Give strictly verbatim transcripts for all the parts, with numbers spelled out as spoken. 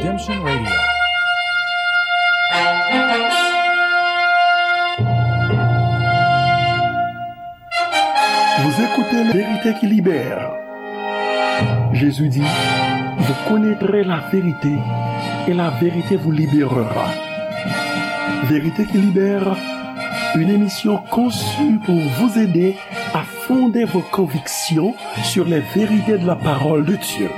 Redemption Radio. Vous écoutez la vérité qui libère. Jésus dit, vous connaîtrez la vérité et la vérité vous libérera. Vérité qui libère, une émission conçue pour vous aider à fonder vos convictions sur les vérités de la parole de Dieu.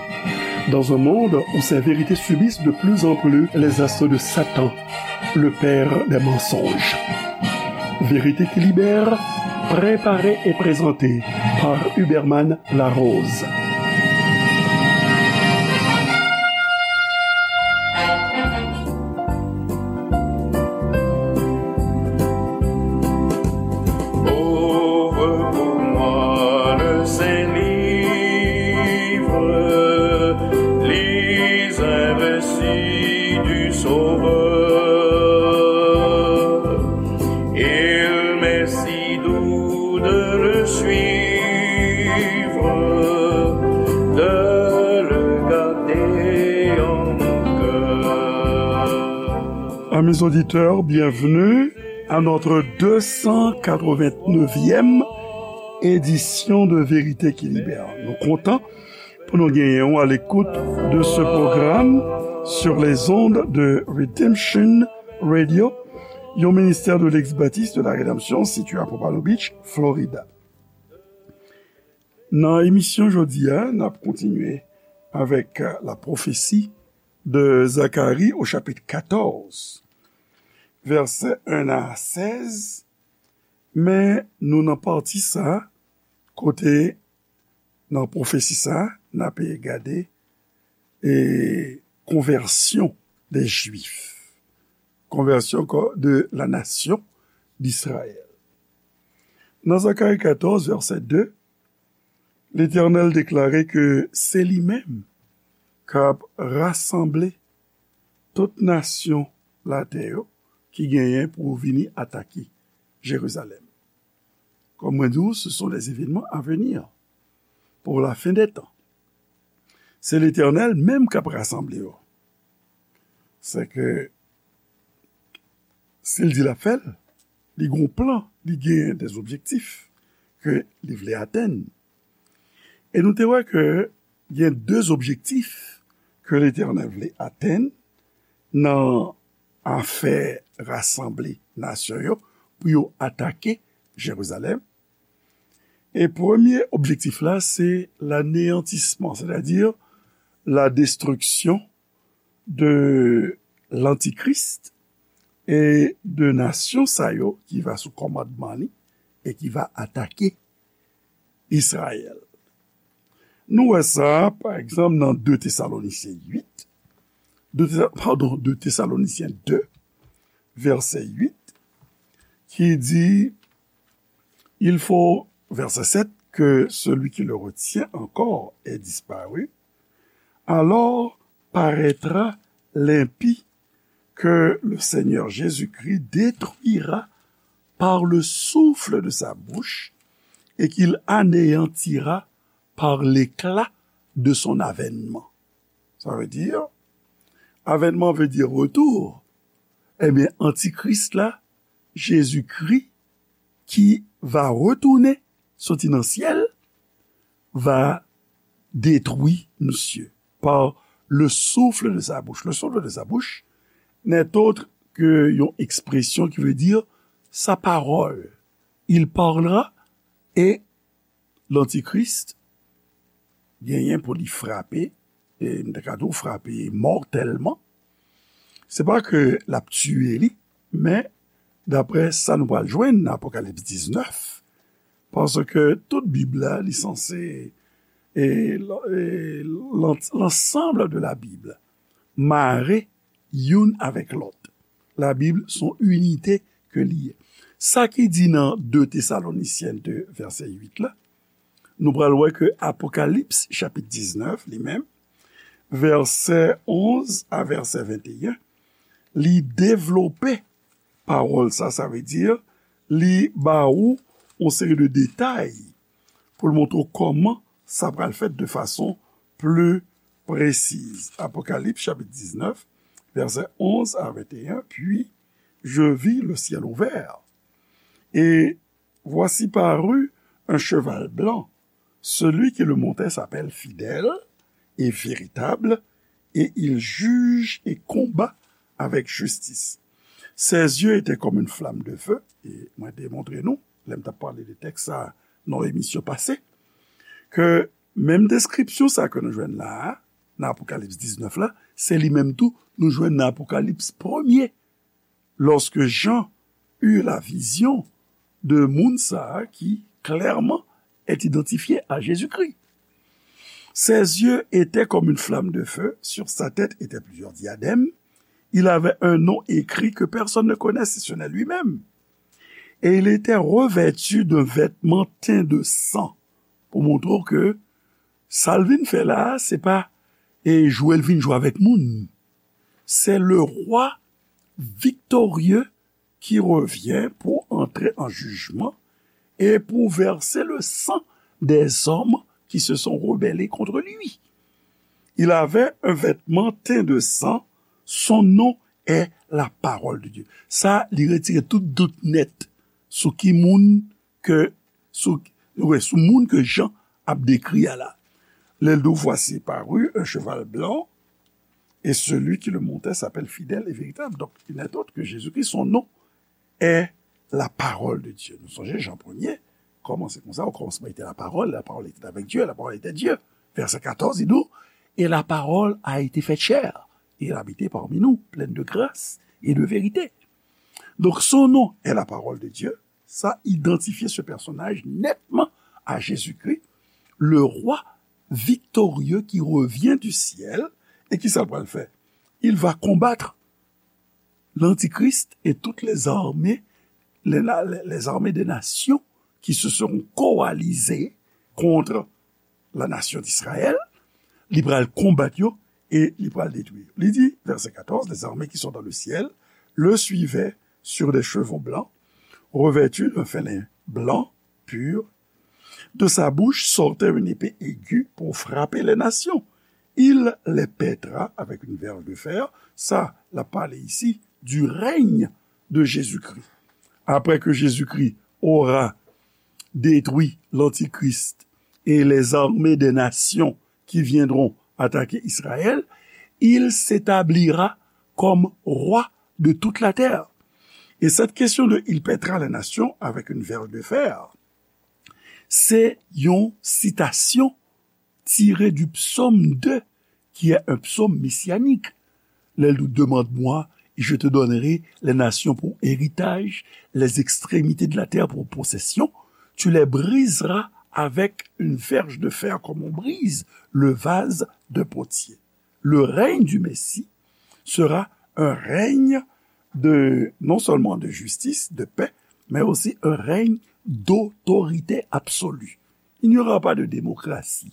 Dans un monde où ces vérités subissent de plus en plus les assauts de Satan, le père des mensonges. Vérité qui libère, préparée et présentée par Huberman Larose. Ouvre pour moi le Saint-Livre, lis un récit du Sauveur. Il m'est si doux de le suivre, de le garder en mon cœur. Amis auditeurs, bienvenue à notre deux cent quatre-vingt-neuvième édition de Vérité qui Libère. Nou kontan pou nou genyen w à l'écoute de ce programme sur les ondes de Redemption Radio, yon ministère de l'ex-baptiste de la Rédemption situé à Pompano Beach, Florida. Nan emisyon jodi a, n ap kontinye avec, euh, la prophétie de Zacharie au chapitre quatorze, verset un à seize, men nou nan pati sa, kote nan pwofesi sa, n ap gade, e, konvèsyon de Jwif, konvèsyon ko-, de la nation d'Israël. Nan Zacharie quatorze, verset deux, Letènèl deklare ke se li menm k ap rasanble tout nasyon latè yo ki genyen pou vini atake Jerizalèm. Comme mwen di w, ce sont les événements à venir pour la fin des temps. Se Letènèl menm k ap rasanble yo. Se ke si l di l ap fè l, li gon plan, li gen des objectifs ke li vle atenn. E nou te wè ke gen de objektif ke Letènèl vle atenn nan afè rasanble nasyon yo pou yo atake Jerizalèm. E premye objektif la, se l'anéantissement, c'est-à-dire la destruction de l'Antichrist et de nasyon sa yo ki va sou kòmandman li e ki va atake Izrayèl. Nou wè sa, pa egzanp, nan de Tesalonisyen uit, de Tesa-, padon, de Tesalonisyen de, vèsè uit, ki di, il faut, verset sept, que celui qui le retient encore ait disparu. Alors paraîtra l'impie que le Seigneur Jésus-Christ détruira par le souffle de sa bouche et qu'il anéantira par l'éclat de son avènement. Sa vle di, avènman vle di retour. Ebyen, antikris la, Jezikri, ki va retounen, soti nan syèl, va detwi misye par le souffle de sa bouche. Le souffle de sa bouche n'est autre que yon ekspresyon ki vle di sa pawòl. Il parlera et l'antikris genyen pou li frape, e m ta ka di w frape mòtèlman. Se pa ke l ap tiye li, men daprè sa nou pral jwenn nan Apokalips diznèf, paske tout Bib la, li sanse, e, e, l'an-, l'ensemble de la Bible mare youn avèk lòt. Labib se yon inite ke li ye. Sa ki di nan de Tesalonisyen de, vèsè uit la, nou pral wè ke Apokalips, chapit diznèf, li menm, vèsè onz a vèsè venteyen, li devlope pawòl sa, sa vle di, li ba ou yon seri de detay pou l montre w kòman sa pral fèt de fason pli précise. Apocalypse chapitre dix-neuf, versets onze à vingt et un, puis je vis le ciel ouvert. Et voici parut un cheval blanc. Celui qui le montait s'appelle Fidèle et Véritable, et il juge et combat avec justice. Ses yeux étaient comme une flamme de feu, e mwen te montre nou, lè m t ap pale de tèks sa nan emisyon pase, ke menm deskripsyon sa ke nou jwenn la a, nan Apokalips diznèf la, se li menm tou nou jwenn nan Apokalips premye, lorsque Jean eut la vision de moun sa a qui clairement est identifié à Jésus-Christ. Ses yeux étaient comme une flamme de feu, sur sa tête étaient plusieurs diadèmes, il avait un nom écrit que personne ne connaît si ce n'est lui-même. Et il était revêtu d'un vêtement teint de sang. Pou montre w ke sa l vin fè la a, se pa e jwe l vin jwe avèk moun. C'est le roi victorieux qui revient pour entrer en jugement et pour verser le sang des hommes qui se sont rebellés contre lui. Il avait un vêtement teint de sang, son nom est la parole de Dieu. Sa, li retire tout dout nèt sou ki moun ke, sou, wè, sou moun ke Jan ap dekri a la. Lè l di w, voici parut un cheval blanc, et celui qui le montait s'appelle Fidèle et Véritable. Donc, il n'est autre que Jésus-Christ, son nom est la parole de Dieu. Nou sonje Jan premye, kòmanse konsa, au commencement était la parole, la parole était avec Dieu, la parole était Dieu. Verset quatorze, il dit, et la parole a été faite chair, et elle a habité parmi nous, pleine de grâce et de vérité. Donc, son nom est la parole de Dieu. Ça identifie ce personnage nettement à Jésus-Christ, le roi victorieux qui revient du ciel et qui ça va le faire. Il va combattre l'Antichrist et toutes les armées, les, les armées des nations qui se seront coalisées contre la nation d'Israël, li pral konbat yo e li pral detwi yo. Li di, verset quatorze, les armées qui sont dans le ciel le suivaient sur des chevaux blancs, revêtus d'un fin lin blanc pur. De sa bouche sortait une épée aiguë pour frapper les nations. Il les pètra avec une verge de fer. Ça, la parle ici du règne de Jésus-Christ. Après que Jésus-Christ aura détruit l'Antichrist et les armées des nations qui viendront attaquer Israël, il s'établira comme roi de toute la terre. Et cette question de il pètra les nations avec une verge de fer, c'est une citation tirée du psaume deux, qui est un psaume messianique. Lè l di, demande-moi, et je te donnerai les nations pour héritage, les extrémités de la terre pour possession. Tu les briseras avec une verge de fer comme on brise le vase de potier. Le règne du Messie sera un règne de, non seulement de justice, de paix, mais aussi un règne d'autorité absolue. Il n'y aura pas de démocratie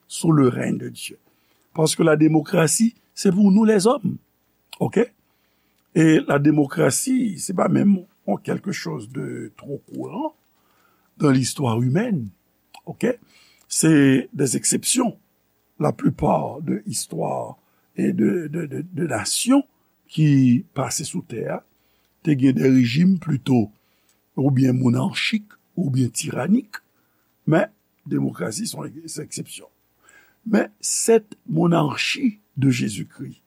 sous le règne de Dieu. Parce que la démocratie, c'est pour nous les hommes. OK? Et la démocratie, c'est pas même quelque chose de trop courant dans l'histoire humaine. OK? C'est des exceptions. La plupart de histoire et de, de, de, de nations ki pase sou tè a, te gen de rejim plito oubyen monarchik, oubyen tiranik, men demokrasi se yon eksepsyon. Men cette monarchie de Jésus-Christ,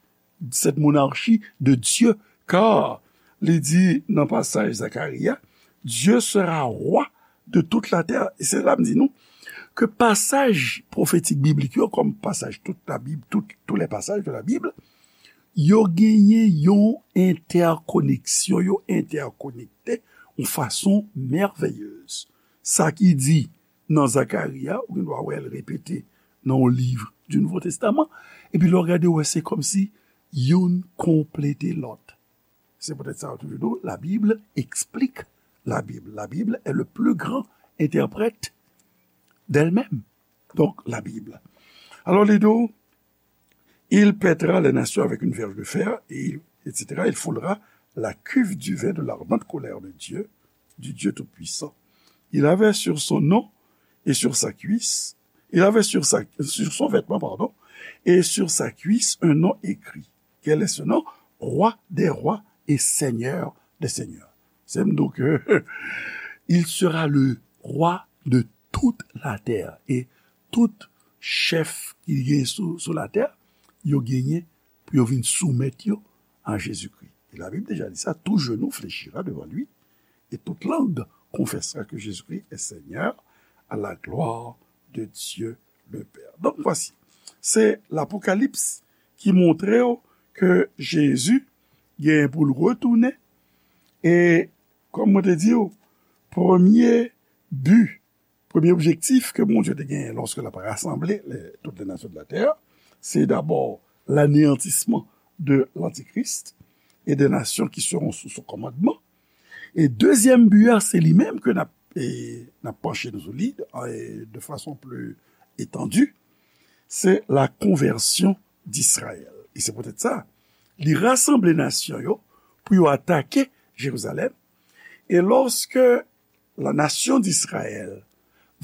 cette monarchie de Dieu, car li di nan pasaj Zacharie, Dieu sera roi de toute la terre. E se la m di nou ke pasaj pwofetik biblik yo, kòm pasaj tout la Bib, tout, tous les passages de la Bible, yo genyen yon entèkoneksyon, yo entèkonekte yon fason mèveyez. Sa ki di nan Zacharie, ou gen dwa wè l repete nan yon liv du Nouveau Testament, epi lè w gade, w wè se kòmsi youn konplete lòt. Se poutèt sa yo toujou di w, la Bible explique la Bible. La Bible est le plus grand interprète d'elle-même. Donc, la Bible. Alors, li di w, il pètra les nations avec une verge de fer, et, et cetera. Il foulera la cuve du vin de l'ardente colère de Dieu, du Dieu Tout-Puissant. Il avait sur son nom et sur sa cuisse, il avait sur sa, sur son vêtement, pardon, et sur sa cuisse un nom écrit. Quel est ce nom? Roi des rois et Seigneur des seigneurs. Se m di w ke il sera le roi de toute la terre. E tout chèf ki gen sou, sou latè, yo genyen pou yo vin soumèt yo a Jezikri. E Labib deja di sa, tout genou fléchira devant lui, et toute langue confessera que Jésus-Christ est Seigneur, à la gloire de Dieu le Père. Donk, vwasi, se Lapokalips ki montre w ke Jezi gen pou l retounen. E, kòm mwen te di w, premye bi, premye objektif ke Bondye te genyen lòske l ap rasanble lè, toutes les nations de la terre, se dabò l'anéantissement de l'Antichrist et des nations qui seront sous son commandement. E dezyèm bi a, se li menm ke n ap, e, n ap panche nou sou li, e, de fason pli etandi, se la conversion d'Israël. E se poutèt sa, li rasanble nasyon yo pou yo atake Jerizalèm. E lòske la nation d'Israël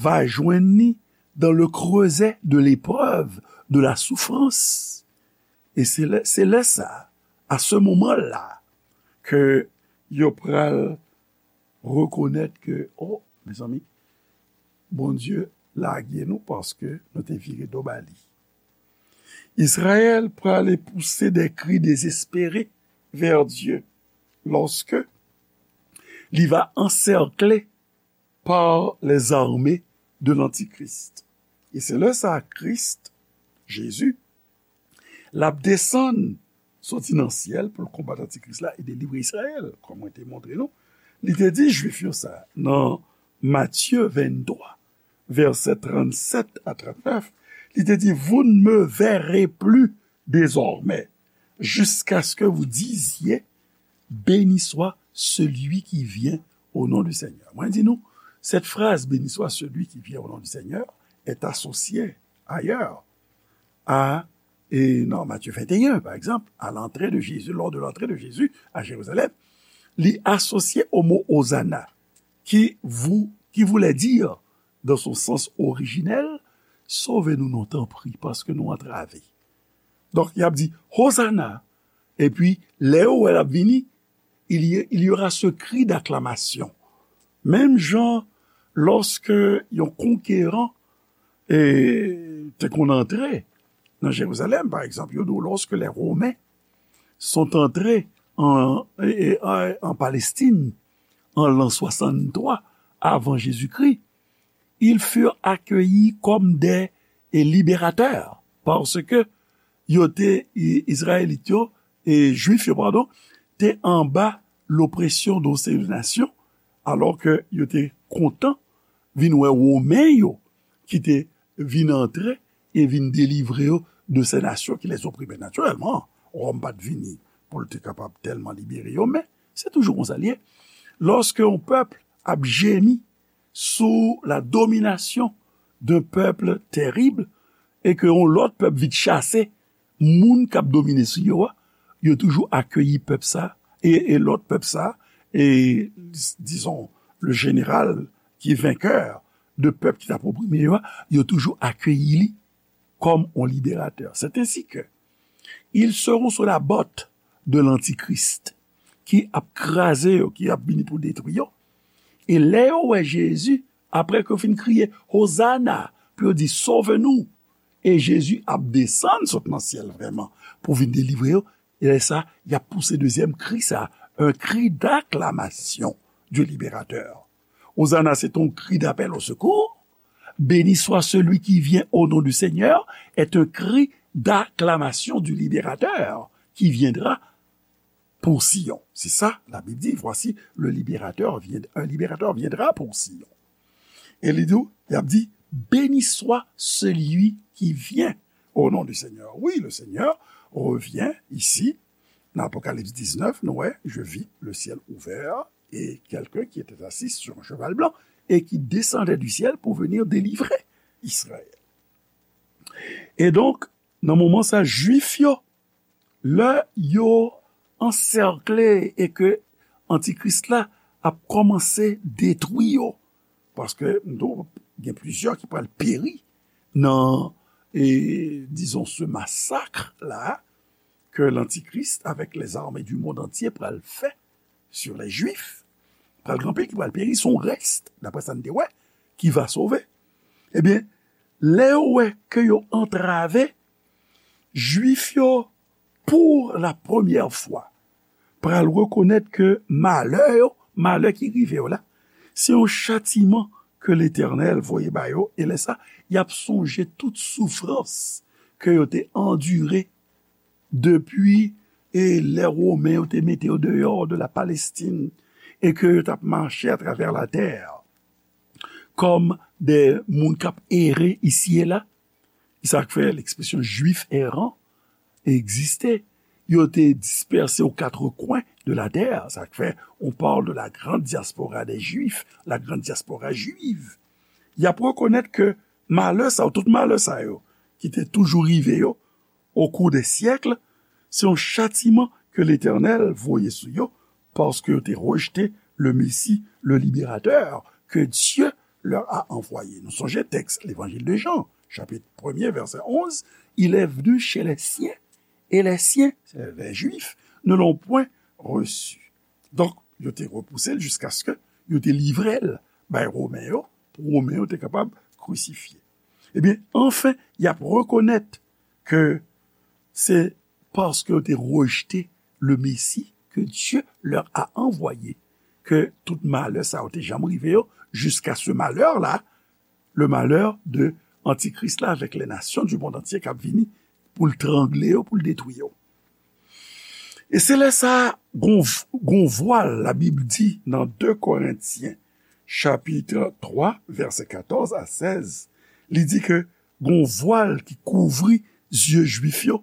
va jwenn li dans le creuset de l'épreuve, de la souffrance. E se lè, se lè sa, à ce moment-là, ke yo pral rekonèt ke, oh, mezanmi, Bondye lage nou paske nou te vire do ba li. Israël prale pouse des cris désespérés vers Dieu lorsque li va encerclé par les armées de l'Antichrist. E se lè sa a Kris, Jezi, l ap desann soti nan syèl pou l konbat Antikris la e delivre Izrayèl, kòm mwen te montre nou. Li te di Jwif yo sa, nan Matye venntwa, vèsè trannsèt a trannèf, li te di, vous ne me verrez plus désormais, jusqu'à ce que vous disiez, béni soit celui qui vient au nom du Seigneur. Mwen di nou, cette phrase, béni soit celui qui vient au nom du Seigneur, est associée ailleurs à, et dans Matthieu vingt et un, par exemple, à l'entrée de Jésus, lors de l'entrée de Jésus à Jérusalem, li asosye o mo Hosanna, qui, vou-, qui voulait dire, dans son sens originel, sove nou non, tanpri, paske nou antrave. Donk, y ap di, Hosanna, epi, lè yo wè l ap vini, il y, il y aura ce cri d'acclamation. Menm jan, lòske yon konkeran, e, te konn antre nan Jerizalèm, pa egzanp, yo di w, lorsque les Romains sont entrés en, e, e, en, en Palestine en l'an soixante-trois avant Jésus-Christ, ils furent accueillis comme des, e, libérateurs, parce que yo te, i-, Izrayelit yo, e, Jwif yo, padon, te anba lopresyon de yon seri de nasyon, alò ke yo te kontan vin wè Women yo ki te vin antre e vin delivre yo de ces nations qui les opprimaient. Natirèlman, Wòm pa t vini pou l te kapab tèlman libere yo, men se toujou konsa l ye. Lorsque yon pèp ap jemi sous la domination d'un peuple terrible, e ke yon lòt pèp vin chase moun k ap domine sou yo a, yo toujou akeyi pèp sa, e, e lòt pèp sa, e, disons, le général qui est vainqueur de pèp ki t ap oprime yo a, yo toujou akeyi li kòm yon liberatè. C'est ainsi que ils seront sous la botte de l'antichrist, ki ap kraze yo, ki ap vini pou detwi yo. E lè yo wè Jezi, apre ke yo fin kriye, Hosanna, pou yo di, sove nou, e Jezi ap desann sot nan syèl vrèman pou vin delivre yo, e lè sa, y ap pouse dezyèm kri sa, un cri d'acclamation du libérateur. Hosanna, c'est un cri d'appel au secours. Béni soit celui qui vient au nom du Seigneur est un cri d'acclamation du libérateur qui viendra pour Sion. C'est ça, la Bible dit, voici, le libérateur vient, un libérateur viendra pour Sion. E li di, y ap di, béni soit celui qui vient au nom du Seigneur. Oui, le Seigneur revient ici. Dans Apocalypse dix-neuf, nou wè, je vis le ciel ouvert et quelqu'un qui était assis sur un cheval blanc et qui descendait du ciel pour venir délivrer Israël. E donk, nan moman sa, Jwif yo, lè yo ansèkle e ke Antikris la ap kòmanse detwi yo, paske m di w, gen plizyè ki pral peri nan, e, dizon, se masak la ke lantikris avèk lèzame di mond antye pral fè sur les Juifs, pral gen anpil ki pral peri, se yon rès, daprè sa n te wè, ki va sove. Ebyen, lè yo wè ke yo antrave, Jwif yo, pou la premyè fwa, pral rekonèt ke malè yo, malè ki rive yo la, se yon chatiman ke Letènèl voye ba yo, e lè sa, y ap sonje tout soufrans ke yo te andire depi, e, lè Women yo te mete yo deyò de la Palestine, e ke yo t ap mache atravè latè kòm de moun k ap ere isi e la. Sa k fè ekspresyon Jwif eran egziste. Yo te dispèse aux quatre coins de la terre. Sa k fè on parle de la grande diaspora des Juifs, la grande diaspora juive. Y ap rekonèt ke malè sa yo, tout malè sa yo, ki te toujou rive yo, au cours des siècles, se yon chatiman ke Letènèl voye sou yo, paske yo te rejte le Messie, le Libérateur que Dieu leur a envoyé. Nou sonje tèks Levanjil de Jan, chapit premye, vèsè onz, Il est venu chez les siens, et les siens, c'est les Juifs, ne l'ont point reçu. Donk, yo te repouse l jiskaske yo te livre l bay Women yo, pou Women yo te kapab krisifye. Ebyen, anfen, y ap rekonèt ke se paske yo te rejte le Messie que Dieu leur a envoyé ke tout malè sa yo te janm rive yo, jiska se malè la, le malè de Antikris la avèk les nations du monde entier k ap vini pou l trangle yo, pou l detwi yo. E se lè sa, gon, gon vwal, Labib di nan de Korentyen, chapit twa, vèsè katòz a sèz, li di ke gon vwal ki kouvri zye Jwif yo,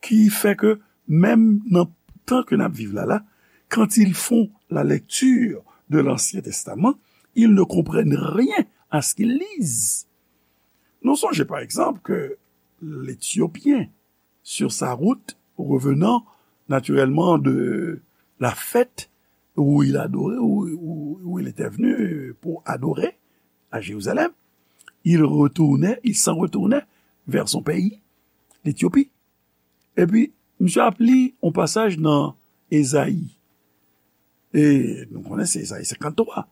ki fè ke menm nan tan ke n ap viv la la, quand ils font la lecture de l'Ancien Testament, ils ne comprennent rien à ce qu'ils lisent. Nou sonje, pa egzanp, ke l'Éthiopien, sur sa route, revenant naturellement de la fête où il adorait, où, où, où il était venu pour adorer à Jérusalem, il retournait, il s'en retournait vers son pays, l'Éthiopie. Epi, misye ap li yon pasaj nan Ezayi. E nou konnen se Ezayi senkanntwa.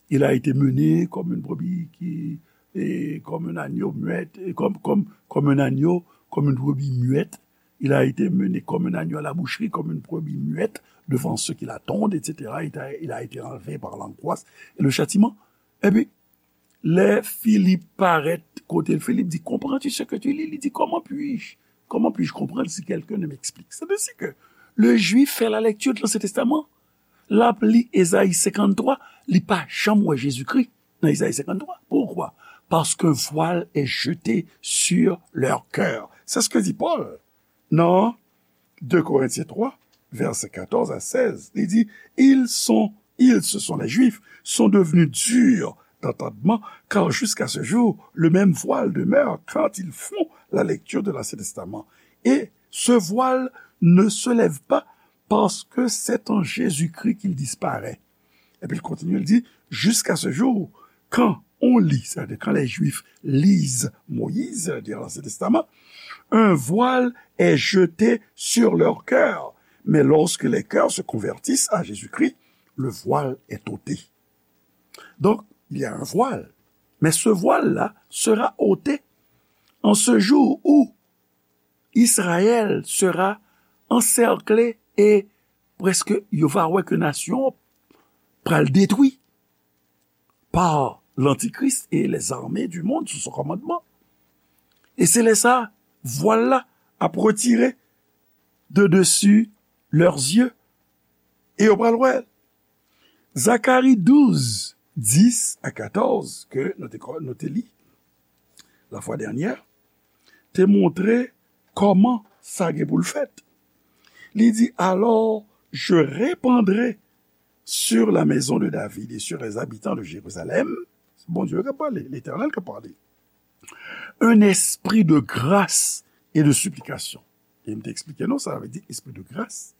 Il a été mené comme une brebis qui, et comme un agneau muette, et comme, comme, comme un agneau, comme une brebis muette. Il a été mené comme un agneau à la boucherie, comme une brebis muette devant ceux qui la tondent, et cetera. Il a, il a été enlevé par l'angoisse et le châtiment. Epi, lè Filip parèt kote l, Filip di, comprends-tu ce que tu lis? Li di, comment puis-je, comment puis-je comprendre si quelqu'un ne m'explique? C'est ainsi que le Juif fait la lecture de l'Ancien Testament. L ap li Ezayi senkanntwa, li pa janm wè Jezikri nan Ezayi senkanntwa. Pourquoi? Parce qu'un voile est jeté sur leur cœur. C'est ce que dit Paul. Non. De Korentyen twa, vèsè katòz a sèz, li di, ils sont, ils, ce sont les Juifs, sont devenus durs d'entendement, car jusqu'à ce jour, le même voile demeure quand ils font la lecture de l'Ancien Testament. Et ce voile ne se lève pas parce que c'est en Jésus-Christ qu'il disparaît. Epi l kontinye, l di, jusqu'à ce jour, quand on lit, c'est-à-dire quand les Juifs lisent Moïse, c'est-à-dire l'Ancien Testament, un voile est jeté sur leur cœur. Mais lorsque les cœurs se convertissent à Jésus-Christ, le voile est ôté. Donc, il y a un voile. Mais ce voile-là sera ôté en ce jour où Israël sera encerclé et prèske yo va wè ke nasyon an pral detwi par l'Antichrist et les armées du monde sous son commandement. E se lè sa, vwal la ap retire de dessus leurs yeux e yo pral wè l. Zakari douz, dis a katòz, ke nou te, nou te li la fwa dènyè, te montre kòman sa gen pou l fèt. Li di, alors, je répandrai sur la maison de David et sur les habitants de Jérusalem, Bondye k ap pale, Letènèl k ap pale, un esprit de grâce et de supplication. E m te eksplike nou, sa vle di espri de grâce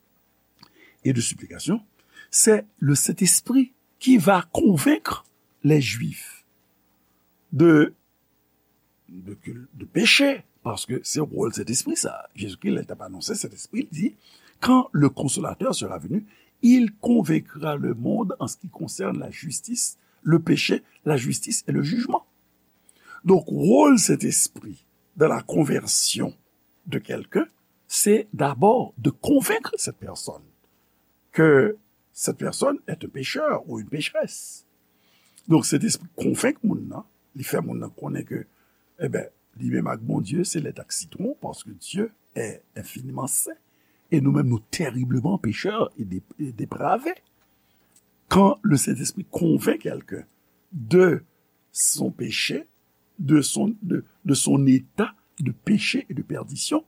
et de supplication, c'est le Saint-Esprit qui va convaincre les Juifs de de, de péché, paske se wòl Sentespri sa. Jezikri, lè l t ap anonse Sentespri, li di, quand le Consolateur sera venu, il convaincra le monde en ce qui concerne la justice, le péché, la justice et le jugement. Donk, wòl Sentespri dans la conversion de quelqu'un, c'est d'abord de convaincre cette personne que cette personne est un pécheur ou une pécheresse. Donk, Sentespri konvenk moun nan, li fè moun nan konnen ke, eben, li menm ak Bondye, se lèt ak sitwon, paske Dieu est infiniment saint, et nous-mêmes, nous terriblement pécheurs et dé- et dépravés. Quand le Saint-Esprit convainc quelqu'un de son péché, de son, de, de son état de péché et de perdition,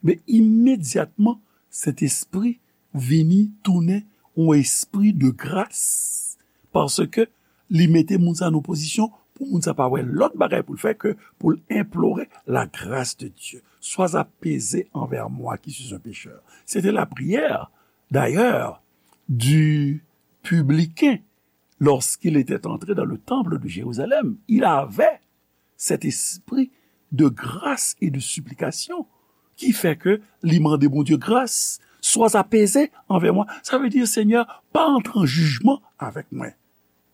men imedyatman, Sentespri vini tounen yon espri de gras, paske li mete moun sa nan pozisyon pou moun sa pa wè lòt bagay pou l fè ke pou l enplore la grâce de Dieu. Sois apaisé envers moi qui suis un pécheur. C'était la prière, d'ailleurs, du publicain lorsqu'il était entré dans le temple de Jérusalem. Il avait cet esprit de grâce et de supplication qui fait que li mande Bondye gras, sois apaisé envers moi. Sa vle di, Senyè, pa antre an jijman avèk mwen,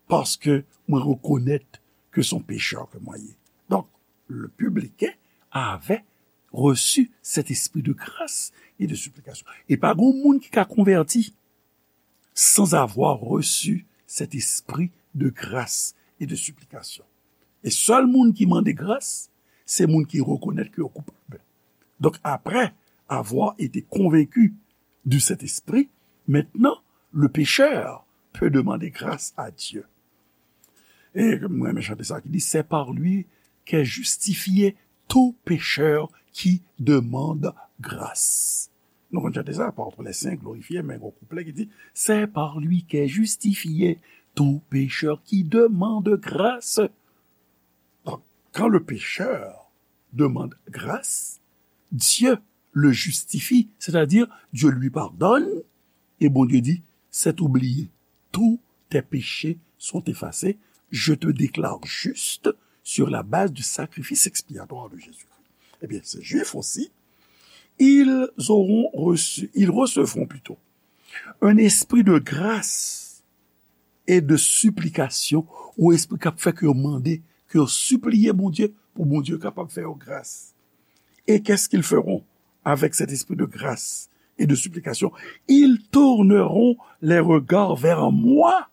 paske mwen rekonèt ke se yon pechè ke mwen ye. Donk, le publicain avait reçu cet esprit de grâce et de supplication. E pa gen moun ki ka konvèti sans avoir reçu cet esprit de grâce et de supplication. E sèl moun ki mande gras, se moun ki rekonèt ke yo koupab. Donc, après avoir été convaincu du Saint-Esprit, maintenant, le pécheur peut demander grâce à Dieu. E mwen renmen chante sa ki di, c'est par lui qu'est justifié tout pécheur qui demande grâce. Nou konn chante sa, apôtre les saints glorifiés, men gon kouplè ki di, c'est par lui qu'est justifié tout pécheur qui demande grâce. Donc, quand le pécheur demande grâce, Dieu le justifie, c'est-à-dire Dieu lui pardonne, et Bondye di, c'est oublié. Tous tes péchés sont effacés. Je te déclare juste sur la base du sacrifice expiatoire de Jésus-Christ. Eh bien, ces Juifs aussi, ils auront reçu, ils recevront plutôt un esprit de grâce et de supplication, ou espri k ap fè ke yo mande, ke yo sipliye Bondye, pou Bondye kapab fè yo gras. Et qu'est-ce qu'ils feront avec cet esprit de grâce et de supplication? Ils tourneront les regards vers moi,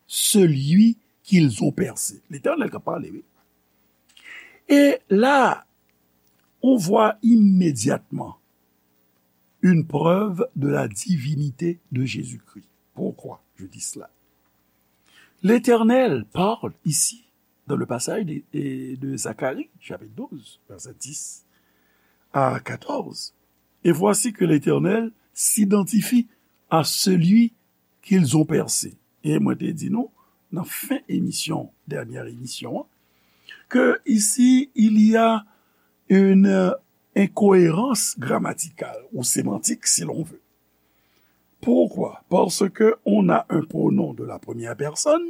celui qu'ils ont percé. L'Éternel k ap pale, wi. Et là, on voit immédiatement une preuve de la divinité de Jésus-Christ. Pourquoi je dis cela? L'Éternel parle ici, dans le passage de, de Zacharie, chapitre douze, verset dix à quatorze. Et voici que l'Éternel s'identifie à celui qu'ils ont percé. E mwen te di nou, nan fen emisyon, dènyè emisyon an, que ici, il y a une incohérence grammaticale ou sémantique, si l'on veut. Pourquoi? Parce que on a un pronom de la première personne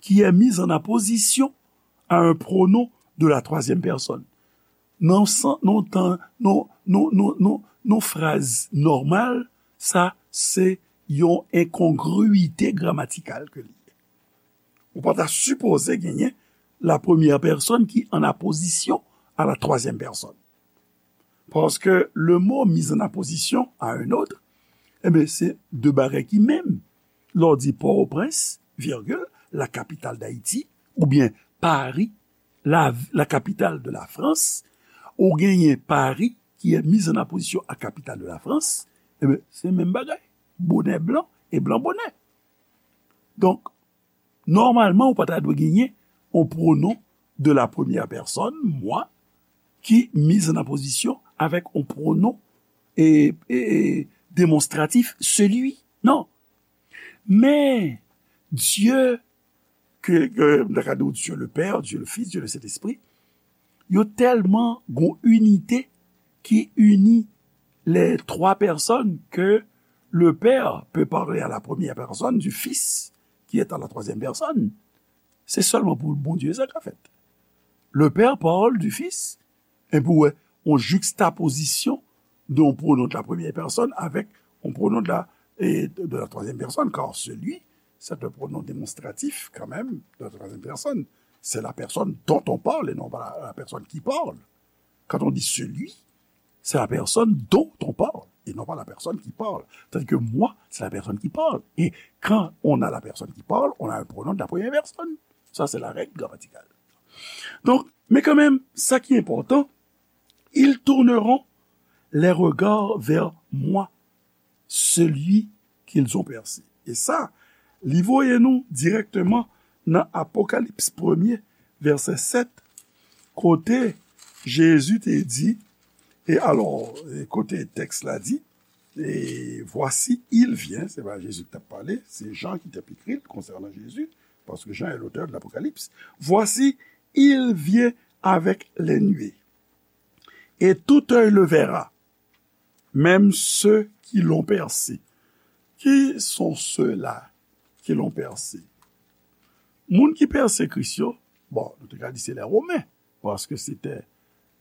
qui est mis en apposition à un pronom de la troisième personne. Nan san, nan tan, nan, nan, nan, nan, nan fraz nòmal, sa se yon enkongwite gramatikal ke li ye. Ou pa ta sipoze genyen la première personne qui en apposition à la troisième personne. Paske le mot mis en apposition à un autre, e ben, se de bagay ki menm. Lè w di Pòtoprens, virgule, la capitale d'Haïti, oubyen Paris, la, la capitale de la France, ou genyen Paris qui est mis en apposition à capitale de la France, e ben, se menm bagay. Bonè blan e blan bonè. Donk, nòmalman, ou pa ta dwe genyen yon pronom de la première personne, moi, qui mis en apposition avec un pronom et, et, et démonstratif, celui. Non. Men, Dieu, ke, ke, m ta ka di w Dieu le Père, Dieu le Fils, Dieu le Saint-Esprit, yo tèlman gon inite ki ini les trois personnes que le Père peut parler à la première personne du Fils qui est à la troisième personne. Se sèlman pou Bondye sa ka fèt. Le Père parle du Fils, epi w wè yon juxtaposition de yon pronom de la première personne avec yon pronom de la, et de la troisième personne, car celui, c'est un pronom démonstratif quand même de la troisième personne. C'est la personne dont on parle et non pas la, la personne qui parle. Quand on dit celui, c'est la personne dont on parle et non pas la personne qui parle. Tandis que moi, c'est la personne qui parle. Et quand on a la personne qui parle, on a un pronom de la première personne. Ça, c'est la règle grammaticale. Donc, mais quand même, ça qui est important, ils tourneront les regards vers moi, celui qu'ils ont percé. E sa, li voye nou dirèkteman nan Apokalips premye, vèsè sèt, kote Jezi te di, e alò, e kote tèks la di, et voici, il vient, se pa Jezi ki t ap pale, se Jan ki t ap ekri l konsènan Jezi, paske Jan est l'auteur de l'Apocalypse. Voici, il vient avec les nuées, et tout œil le verra, même ceux qui l'ont percé. Qui sont ceux-là qui l'ont percé? Moun ki pèse Kris yo, bon, nou te ka di se lè Women, paske se te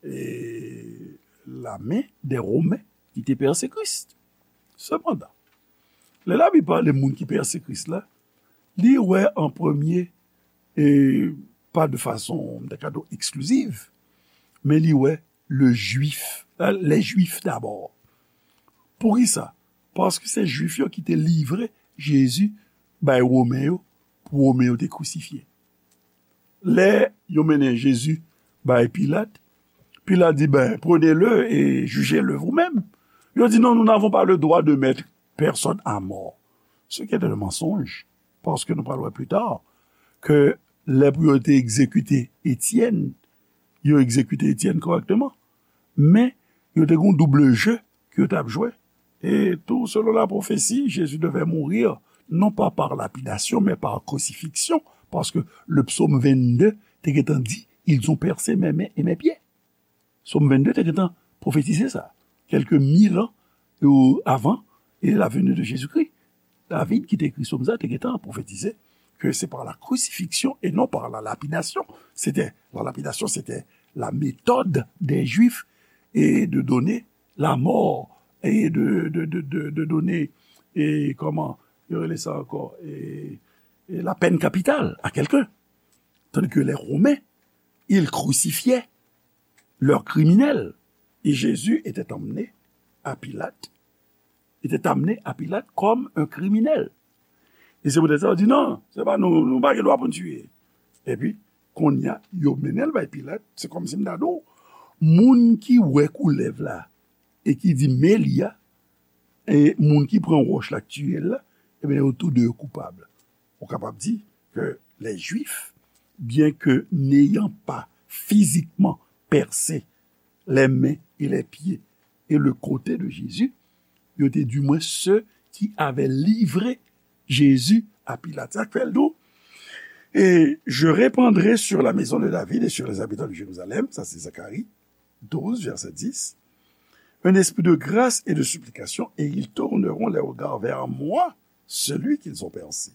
e, lame dè Women ki te pèse Kris. Sepandan, lè Labib pale moun ki pèse Kris la, li wè an premye, e pa de fason, m ta ka di w, ekspliziv, men li wè le Juif, les Juifs d'abord. Poukisa? Paske se Juif yo ki te livre Jezi bay Women yo, pou Women yo te krisifye. Lè yo mennen Jezi bay Pilat, Pilat di, ben, prenez-le et jugez-le vous-même. Yo di, non, nous n'avons pas le droit de mettre personne à mort. Ce qui était un mensonge, paske nou pral wè pli ta, ke lè pou yo te egzekite Etyèn, yo egzekite Etyèn kòrèkteman. Men, yo te gen yon double jeu ke yo t ap jwe. Et tout selon la prophétie, Jésus devait mourir, non pas par lapidation, mais par crucifixion, paske le psaume vingt-deux te gentan di, ils ont percé mes mains et mes pieds. Psaume vingt-deux te gentan pwofetize sa, quelques mille ans, euh, avant, et la venue de Jésus-Christ. David ki te ekri psaume sa te gentan pwofetize que c'est par la crucifixion et non par la lapidation. C'était, la lapidation, c'était la méthode des Juifs et de donner la mort et de, de, de, de, de donner, et comment, yo rele sa ankò, et, et la peine capitale à quelqu'un. Tandis que les Romains, ils crucifiaient leurs criminels. Et Jésus était emmené à Pilate, était amené à Pilate comme un criminel. E se poutèt sa, yo di, non, se pa nou, nou pa gen dwa pou n tiye. Epi, kounye a, yo mennen l bay Pilat, se kòmsi m ta di w, moun ki wè koulèv la, e ki di, men li a, e moun ki pran wòch la k tiye l la, ebyen, yo tou de yo koupab. Ou kapab di ke les Juifs, bien que n'ayant pas physiquement percé les mains et les pieds et le côté de Jésus, yo te di mwen ceux qui avaient livré Jésus à Pilate. Sa k fè l di w, et je répandrai sur la maison de David et sur les habitants de Jérusalem, sa se Zacharie douze, verset dix, un esprit de grâce et de supplication, et ils tourneront les regards vers moi, celui qu'ils ont percé.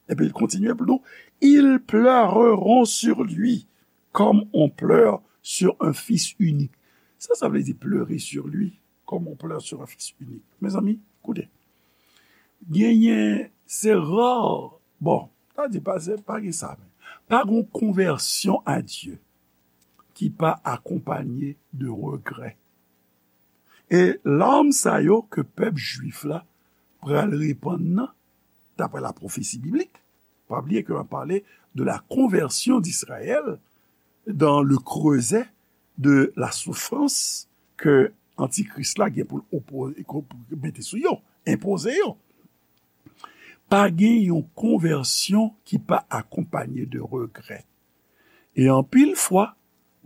Epi l kontinye pou nou, ils pleureront sur lui comme on pleure sur un fils unique. Sa, sa vle di pleurer sur lui comme on pleure sur un fils unique. Mezanmi, koute. Genyen, se ra, bon, sa di pa, se pa gen sa, men pa gen konvèsyon a Dye ki pa akonpanye de regrè. E larm sa yo ke pèp jwif la pral repann nan, daprè la pwofesi biblik, pa bliye ke m ap pale de la conversion d'Israël dans le creuset de la souffrance ke antikris la gen pou l opo-, pou mete sou yo, enpoze yo. Pa gen yon konvèsyon ki pa akonpanye de regrè. E anpil fwa,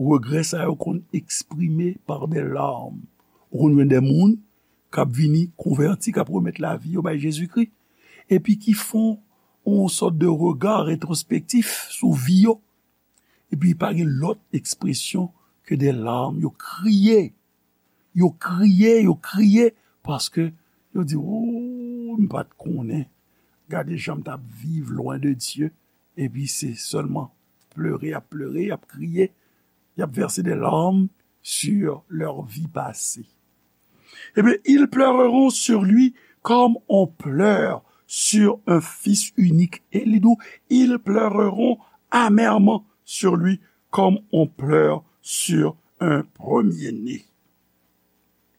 regrè sa yo konn eksprime par des larmes. Ou konn jwenn de moun k ap vini konvèti, k ap remèt lavi yo bay Jezikri, epi ki fè yon sòt de rega retwospektif sou vi yo. Epi pa gen lòt ekspresyon ke de larmes. Yo kriye. Yo kriye, yo kriye, paske yo di, "Ooh, m pa t konnen. Gade jan m t ap viv lwen de Dye." Epi se sèlman plere, y ap plere, y ap kriye. Y ap vèse de larmes sur leur vie passée. Eh bien, ils pleureront sur lui comme on pleure sur un fils unique. E li di w, ils pleureront amèrement sur lui comme on pleure sur un premier-né.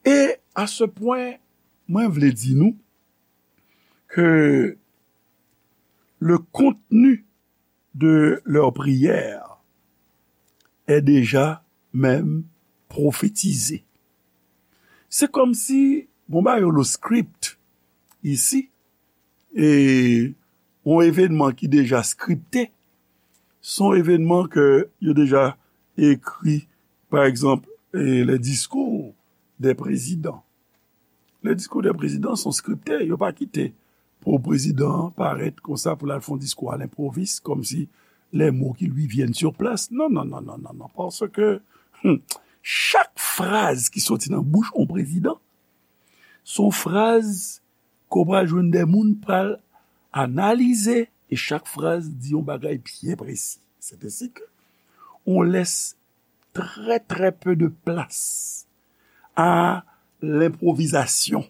E a ce point, mwen vle di nou ke le contenu de leur prière est déjà même prophétisé. Se kòmsi, bon, ba yo le script isi, e yon evènman ki deja skripte, se yon evènman ke yo deja ekri, pa egzanp, e, les discours des présidents. Les discours des présidents sont scriptés, yo pa kite pou prezidan an parèt konsa pou l al fè yon diskou à l'improviste, comme si les mots qui lui viennent sur place. Non, non, non, non, non, non, paske hmm, chak fraz ki soti nan bouch yon prezidan, se yon fraz ke w pral jwenn de moun pral analize, e chak fraz di yon bagay byen presi. C'est ainsi que on laisse très, très peu de place à l'improvisation.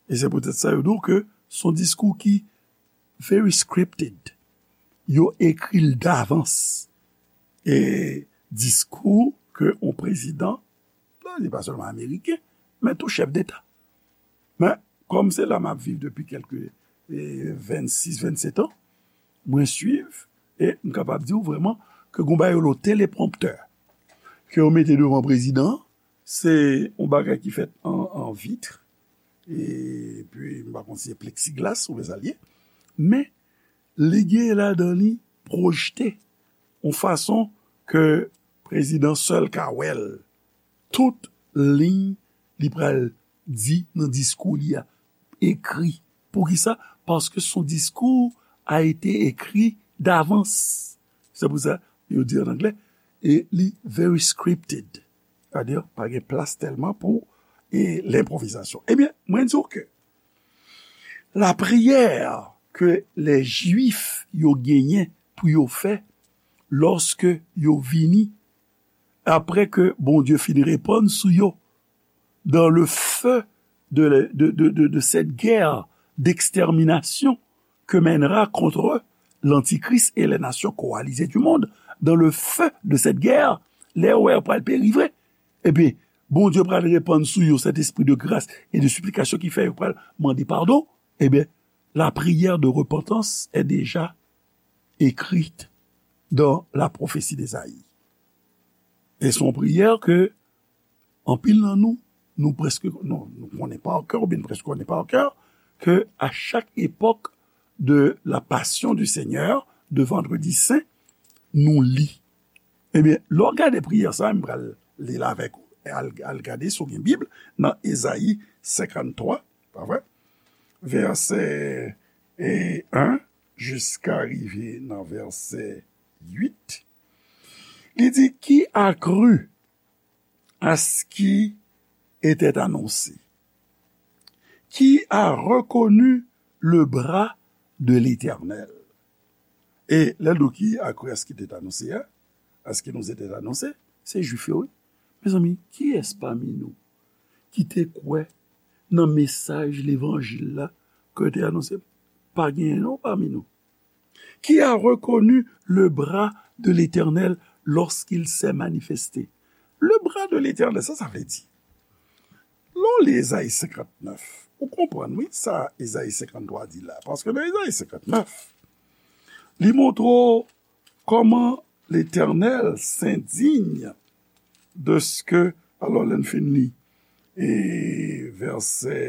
E se poutèt sa yo di w ke se yon diskou ki very scripted. Yo ekri l davans. E diskou ke yon prezidan, li pa sèlman ameriken, men tou chèf deta. Men, kòm se la m ap viv depi kèlke, e, vennsis, vennset an, mwen swiv, e m kapab di w vrèman ke gon bagay yo rele teleprompteur, ke yo mete devan prezidan an, se yon bagay ki fèt an, an vit, epi m pa konn si se pleksiglas oubyen sa l ye, men li gen ladan li pwojte yon fason ke prezidan sèl ka wè l. Tout liy li pral di nan diskou li a ekri. Poukisa? Paske son diskou a été écrit d'avance. Se pou sa yo di an anglè, e li very scripted. Sa di, pa gen plas tèlman pou e lenpwovizasyon. Ebyen, mwen di w ke la priyè ke les Juifs yo genyen pou yo fè lòske yo vini, apre ke Bondye fin repann sou yo, dans le feu de, de, de, de, de cette guerre d'extermination que mènera contre l'Antichrist et les nations coalisées du monde, dans le feu de cette guerre, lè yo wè yo pral peri vre, ebyen, Bondye pral repann sou yo Sentespri de gras e de siplikasyon ki fè yo pral mande padon, ebyen, la prière de repentance est déjà écrite dans la prophétie d'Ésaïe. E se yon priyè ke anpil nan nou, nou prèske, nou, nou konnen pa kè, oubyen nou prèske konnen pa kè, ke a chak epòk de la Passion du Seigneur, de Vendredi Saint, nou li. Ebyen, lè w gade priyè sa, m pral li l avèk ou. Al, al gade si w gen Bib, nan Ezayi senkanntwa, pa vre? Vèsè, e, en jiska rive nan vèsè uit. Li di, qui a cru à ce qui était annoncé? Qui a reconnu le bras de l'Éternel? E lè l di w qui a cru à ce qui était annoncé a, à ce qui nous était annoncé, se Jwif yo, wi. Mezanmi, kiyès pami nou ki te kwè nan mesaj levanjil la ke te anonse? Pa genyen non pami nou. Qui a reconnu le bras de l'Éternel lorsqu'il s'est manifesté? Le bras de l'Éternel, sa sa vle di? Lè w li Ezayi senkannnèf, ou konprann, wi, sa Ezayi senkanntwa di la. Paske nan Ezayi senkannnèf, li montre w kòman Letènèl s'indigne de ce que, alò, lè n fin li, e vèsè,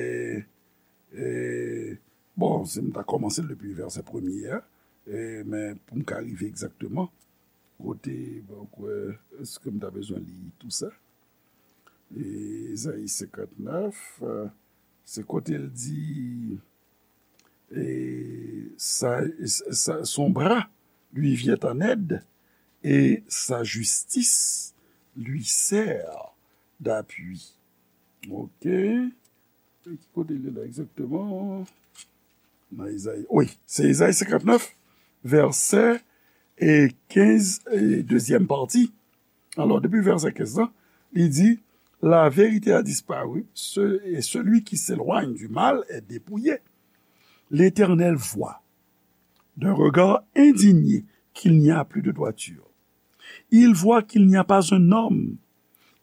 e, bon, si m ta kòmanse l depi vèsè premye a, e, men pou m ka rive egzakteman kote, bon, kwè, èske m ta bezwen li tou sa? E, Ezayi senkannnèf, e, se kote l di, e, sa, sa, son bras lui vient en aide et sa justice lui sert d'appui. Ok. E ki kote li la egzakteman? Nan Ezayi. Wi, se Ezayi senkannnèf, vèsè e kenz, e dezyèm pati. Alò, depi vèsè kenz lan, li di, la vérité a disparu, ce- et celui qui s'éloigne du mal est dépouillé. L'Éternel voit d'un regard indigné qu'il n'y a plus de droiture. Il voit qu'il n'y a pas un homme.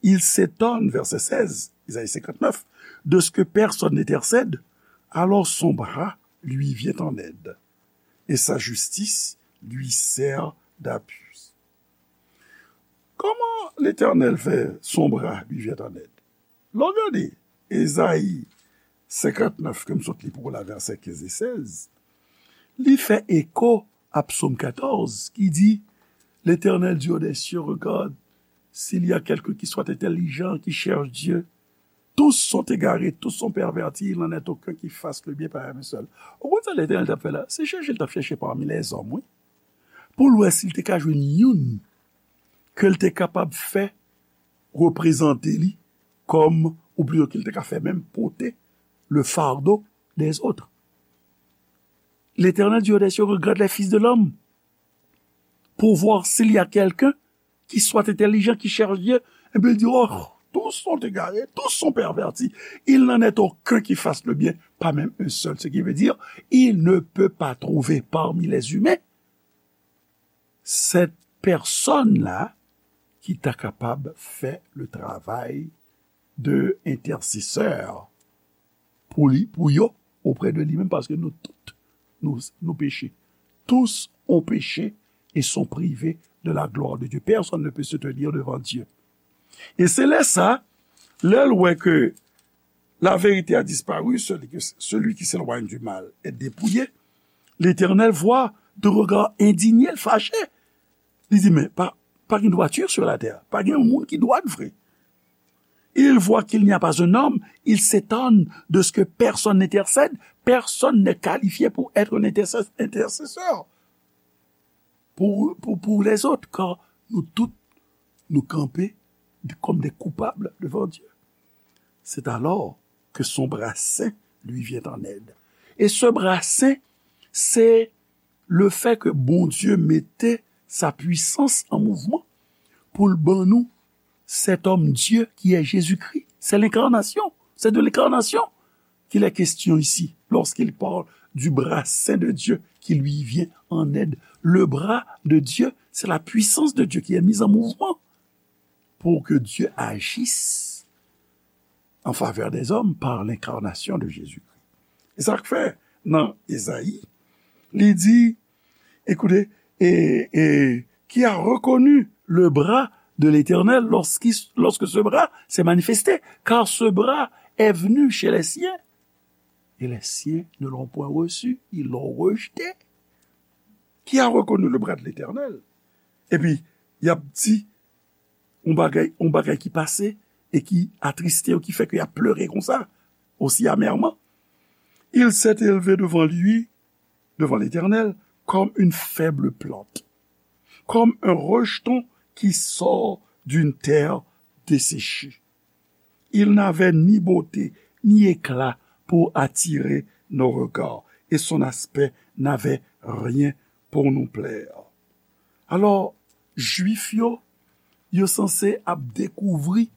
Il s'étonne, verset seize, Isaïe cinquante-neuf, de ce que personne n'intercède. Alors son bras lui vient en aide, et sa justice lui sert d'appui. Kòman Letènèl fè son bra li vyen an èd? Lè w gade Ezayi senkantnèf ke m sot li pou w la, vèsè kenz e sèz, li fè eko a Psaume quatorze ki di, L'Éternel Dieu des cieux regarde s'il y a quelqu'un qui soit intelligent, qui cherche Dieu. Tous sont égarés, tous sont pervertis, il n'en est aucun qui fasse le bien, pas même un seul. Ou konn sa Letènèl t ap fè la? Se chèche l t ap chèche pami lèzòm, wi. Pou l wè si l te ka jwenn youn ke l te kapab fè reprezante li kòm, ou plito ke l te ka fè menm pote le fardeau des autres. L'Éternel Dieu des cieux regarde les fils de l'homme pour voir s'il y a quelqu'un qui soit intelligent, qui cherche Dieu. Epi l di, oh, tous sont égarés, tous sont pervertis. Il n'en est aucun qui fasse le bien, pas même un seul. Ce qui veut dire, il ne peut pas trouver parmi les humains cette personne-là ki ta kapab fè le travay de entèsesè pou li, pou yo, oprè de li menm, paske nou tout, nou, nou peche. Tous ont péché et sont privés de la gloire de Dieu. Personne ne peut se tenir devant Dieu. E se lè sa, lè l wè ke la vérité a disparu, celui, que- celui qui s'éloigne du mal est dépouillé, l'Éternel voit de regard indigné, l fache. Li di, men pa, pa gen dwati sur la terre, pa gen yon moun ki dwat vre. Il voit qu'il n'y a pas un homme, il s'étonne de ce que personne n'intercède, personne n'est qualifié pour être un intercès- intercesseur pour, pour, pour les autres, car nous tous, nous camper de- comme des coupables devant Dieu. C'est alors que son bras saint lui vient en aide. Et ce bras saint, c'est le fait que Bondye mete sa puissance en mouvement pour l ban nou cet homme Dieu qui est Jésus-Christ. C'est l'incarnation. C'est de l'incarnation qu'il est question ici, lorsqu'il parle du bras saint de Dieu qui lui vient en aide. Le bras de Dieu, c'est la puissance de Dieu qui est mise en mouvement pour que Dieu agisse en faveur des hommes par l'incarnation de Jésus-Christ. E sa k fè nan Ezayi, li di, écoutez, et, et qui a reconnu le bras de l'Éternel lorsqu'il- lorsque ce bras s'est manifesté, car ce bras est venu chez les siens, et les siens ne l'ont point reçu, ils l'ont rejeté. Qui a reconnu le bras de l'Éternel? Epi, y ap di, yon bagay, yon bagay ki pase e ki atriste yo, ki fè ke y ap plere konsa, aussi amèrement. Il s'est élevé devant lui, devant l'Éternel, comme une faible plante, comme un rejeton qui sort d'une terre desséchée. Il n'avait ni beauté, ni éclat pour attirer nos regards, et son aspect n'avait rien pour nous plaire. Alò, Jwif yo, yo sanse ap dekouvri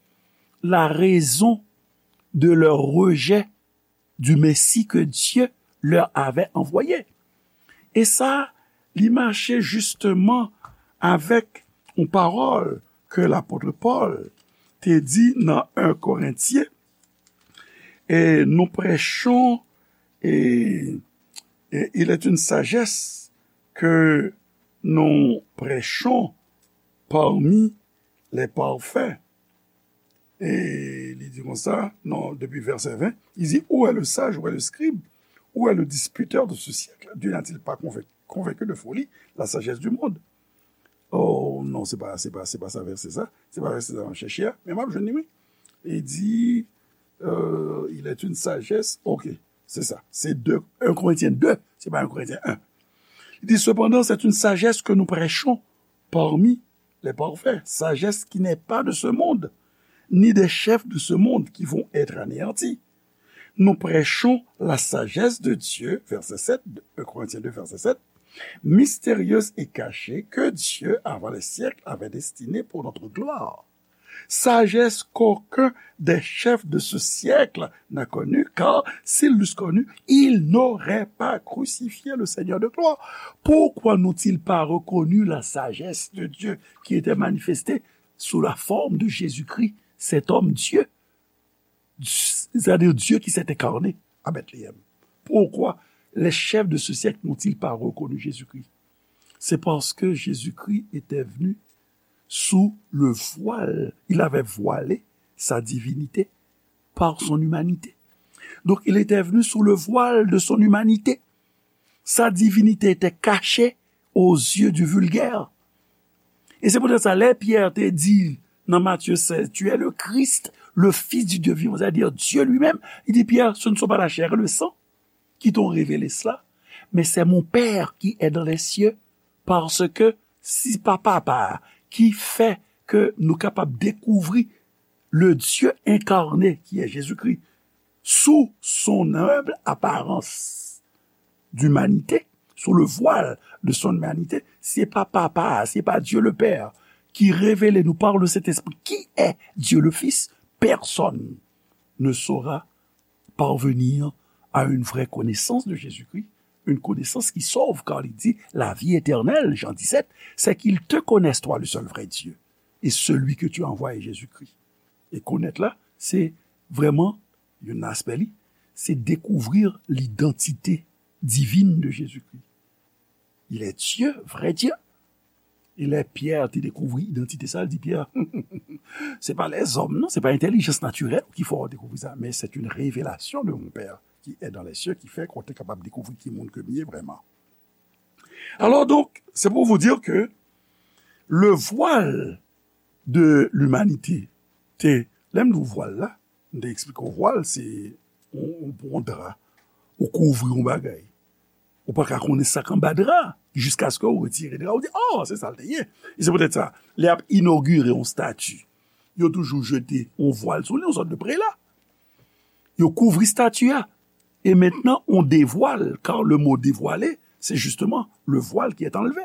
la raison de leur rejet du Messie que Dieu leur avait envoyé. E sa, li mache jisteman avèk yon pawòl ke lapot Pòl te di nan en Korentyen, et nous prêchons, et, et il est une sagesse que nous prêchons parmi les parfaits. E li di konsa, non, depi vèsè ven, il dit, où est le sage, où est le scribe, où est le disputeur de ce siècle? Dieu n'a-t-il pas convaincu, convaincu de folie la sagesse du monde? Oh non, se pa, se pa, se pa sa vèsè sa. Se pa vèsè sa m ap chèche a, men m ap jwenn li, wi. Li di, euh, il est une sagesse, ok, se sa. Se de, en Korentyen de, se pa en Korentyen en. Li di, cependant, c'est une sagesse que nous prêchons parmi les parfaits, sagesse qui n'est pas de ce monde, ni des chefs de ce monde qui vont être anéantis. Nous prêchons la sagesse de Dieu, verset sept, de un Corinthiens deux, verset sept, mystérieuse et cachée que Dieu, avant les siècles, avait destinée pour notre gloire. Sagesse qu'aucun des chefs de ce siècle n'a connue, car s'ils l'eussent connue, ils n'auraient pas crucifié le Seigneur de gloire. Pourquoi n'ont-ils pas reconnu la sagesse de Dieu qui était manifestée sous la forme de Jésus-Christ, cet homme Dieu, c'est-à-dire Dieu qui s'est incarné à Bethléem? Pourquoi les chefs de ce siècle n'ont-ils pas reconnu Jésus-Christ? C'est parce que Jésus-Christ était venu sous le voile. Il avait voilé sa divinité par son humanité. Donc, il était venu sous le voile de son humanité. Sa divinité était cachée aux yeux du vulgaire. E se poutèt sa, lè Pyè te di nan Matye sèz, tu es le Christ, le Fils du Dieu vivant, c'est-à-dire Dieu lui-même, il dit, Pierre, ce ne sont pas la chair et le sang qui t'ont révélé cela, mais c'est mon Père qui est dans les cieux, parce que si pa papa ki fè ke nou kapab dekouvri le Dieu incarné qui est Jésus-Christ sous son humble apparence d'humanité, sous le voile de son humanité, se pa papa, se pa Dieu le Père qui révèle nous par le Saint-Esprit qui est Dieu le Fils, personne ne saura parvenir à une vraie connaissance de Jésus-Christ, une connaissance qui sauve, car il dit la vie éternelle, Jean dix-sept, c'est qu'ils te connaissent, toi, le seul vrai Dieu, et celui que tu as envoyé, Jésus-Christ. E konèt la, se vrèman, youn nan aspè li, se découvrir l'identité divine de Jésus-Christ. Il est Dieu, vrai Dieu. E lè Pyè te dekouvri idantite sa, li di Pyè, se pa lèzòm, non, se pa entèlijans natirèl ki fè w dekouvri sa, men c'est une révélation de mon Père qui est dans les cieux, ki fè ke w te kapab dekouvri ki moun ke m ye vrèman. Alors donc, c'est pour vous dire que le voile de l'humanité, te, lè m di w vwal la, m te eksplike w vwal, se yon, yon dra, ou kouvri yon bagay. Ou pa ka konnen sa k anba dra, jiskaske ou retire dra, ou di, oh, se sa l te ye. E se poutèt sa, lè y ap inogire yon stati, yo toujou jete yon vwal sou li, yon sòt de prela. Yo kouvri stati a. E mentnan, on dévoile, car le mot dévoiler, c'est justement le voile qui est enlevé.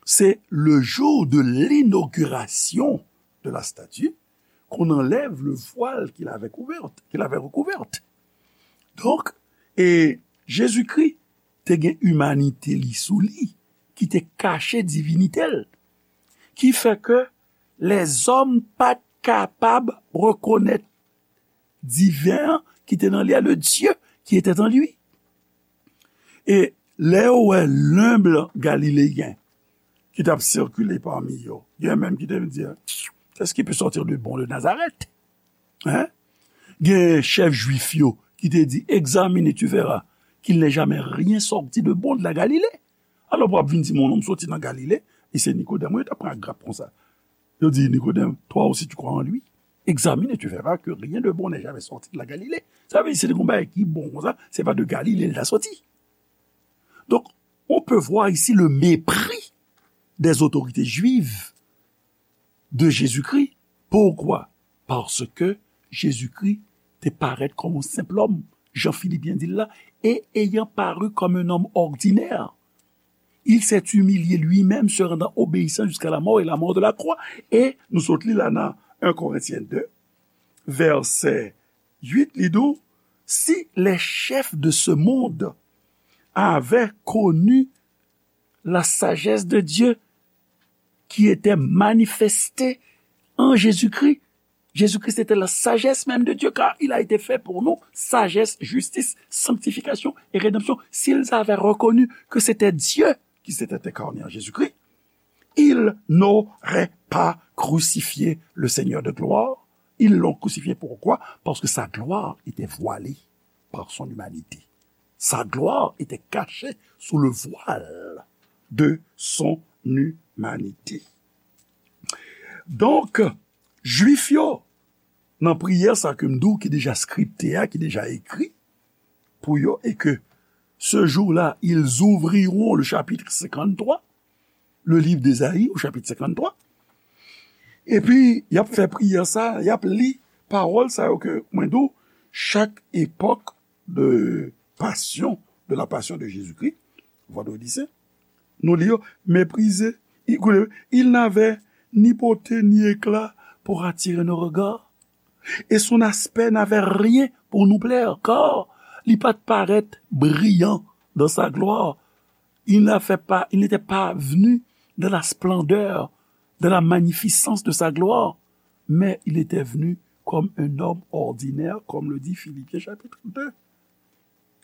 C'est le jour de l'inauguration de la statue qu'on enlève le voile qui l'avait couverte, qui l'avait recouverte. Donk, e Jezikri te gen imanite li sou li, ki te kache divinite l, ki fè ke lèzòm pa t kapab rekonèt diven an ki te nan li a, le Dieu qui était en lui. E lè yo wè lenb galileyen ki t ap sikile pami yo, gen menm ki te vin di, qu'est-ce qui peut sortir de bon de Nazareth? Hein? Gen chèf jwif yo ki te di, examine et tu verras qu'il n'est jamais rien sorti de bon de la Galilée. Alò, pou ap vin di m yon nonm soti nan Galile, e se Nikodèm, wi, yo t ap pran ak grap konsa. Yo di, Nikodèm, toi aussi tu crois en lui? Examine et tu verras que rien de bon n'est jamais sorti de la Galilée. Sa vle di, si te gen yon bagay ki bon konsa, se pa de Galile l ta soti. Donc, on peut voir ici le mépris des autorités juives de Jésus-Christ. Pourquoi? Parce que Jésus-Christ te parèt kòm yon senp lòm, jan Filipyen di l la, et ayant paru comme un homme ordinaire, il s'est humilié lui-même, se rendant obéissant jusqu'à la mort et la mort de la croix. E nou sot li la nan un Corinthiens deux, verset huit, li di w, si les chefs de ce monde avaient connu la sagesse de Dieu qui était manifestée en Jésus-Christ, Jésus-Christ était la sagesse même de Dieu, car il a été fait pour nous sagesse, justice, sanctification et rédemption. S'ils avaient reconnu que c'était Dieu qui s'était incarné en Jésus-Christ, ils n'auraient pas crucifié le Seigneur de gloire. Ils l'ont crucifié pourquoi? Parce que sa gloire était voilée par son humanité. Sa gloire était cachée sous le voile de son humanité. Donk, Jwif yo, nan priyè sa ke m di w ki deja skripte a, ki deja ekri pou yo, et que ce jour-là, ils ouvriront le chapitre cinquante-trois, le livre d'Ésaïe au chapitre cinquante-trois, epi y ap fè priyè sa, y ap li pawòl sa yo ke mwen di w, chak epòk de passion, de la passion de Jésus-Christ, Pardon, lycée. Nou li yo, méprisé. Il, koute, il n'avait ni beauté ni éclat pour attirer nos regards. Et son aspect n'avait rien pour nous plaire, car li pa t parèt brillant dans sa gloire. Il n'a fait pas, il n'était pas venu dans la splendeur, dans la magnificence de sa gloire, mais il était venu comme un homme ordinaire, comme le dit Philippiens chapitre deux.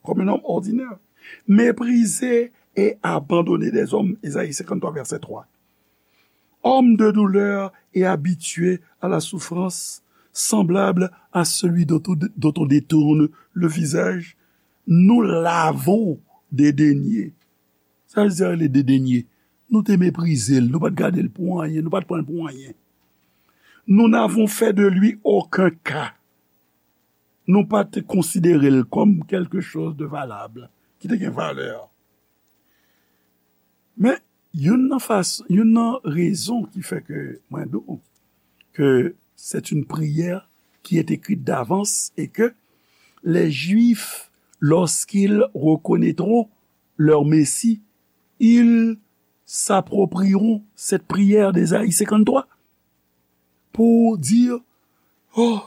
Comme un homme ordinaire, méprisé et abandonné des hommes, Ésaïe cinquante-trois, verset trois. Homme de douleur et habitué à la souffrance, semblable à celui dont on, dont on détourne le visage, nous l'avons dédaigné. Sa vle di, le dédaigné. Nou te meprize l, nou pa t gade l pou anyen, nou pa t pran l pou anyen. Nous n'avons fait de lui aucun cas. Nou pa te konsidere l kòm quelque chose de valable, ki te gen valè. Men, youn nan fas-, youn nan rezon ki fè ke mwen di w ke c'est une prière qui est écrite d'avance et que les Juifs, lorsqu'ils reconnaîtront leur Messie, ils s'approprieront cette prière d'Ésaïe cinquante-trois pour dire, oh,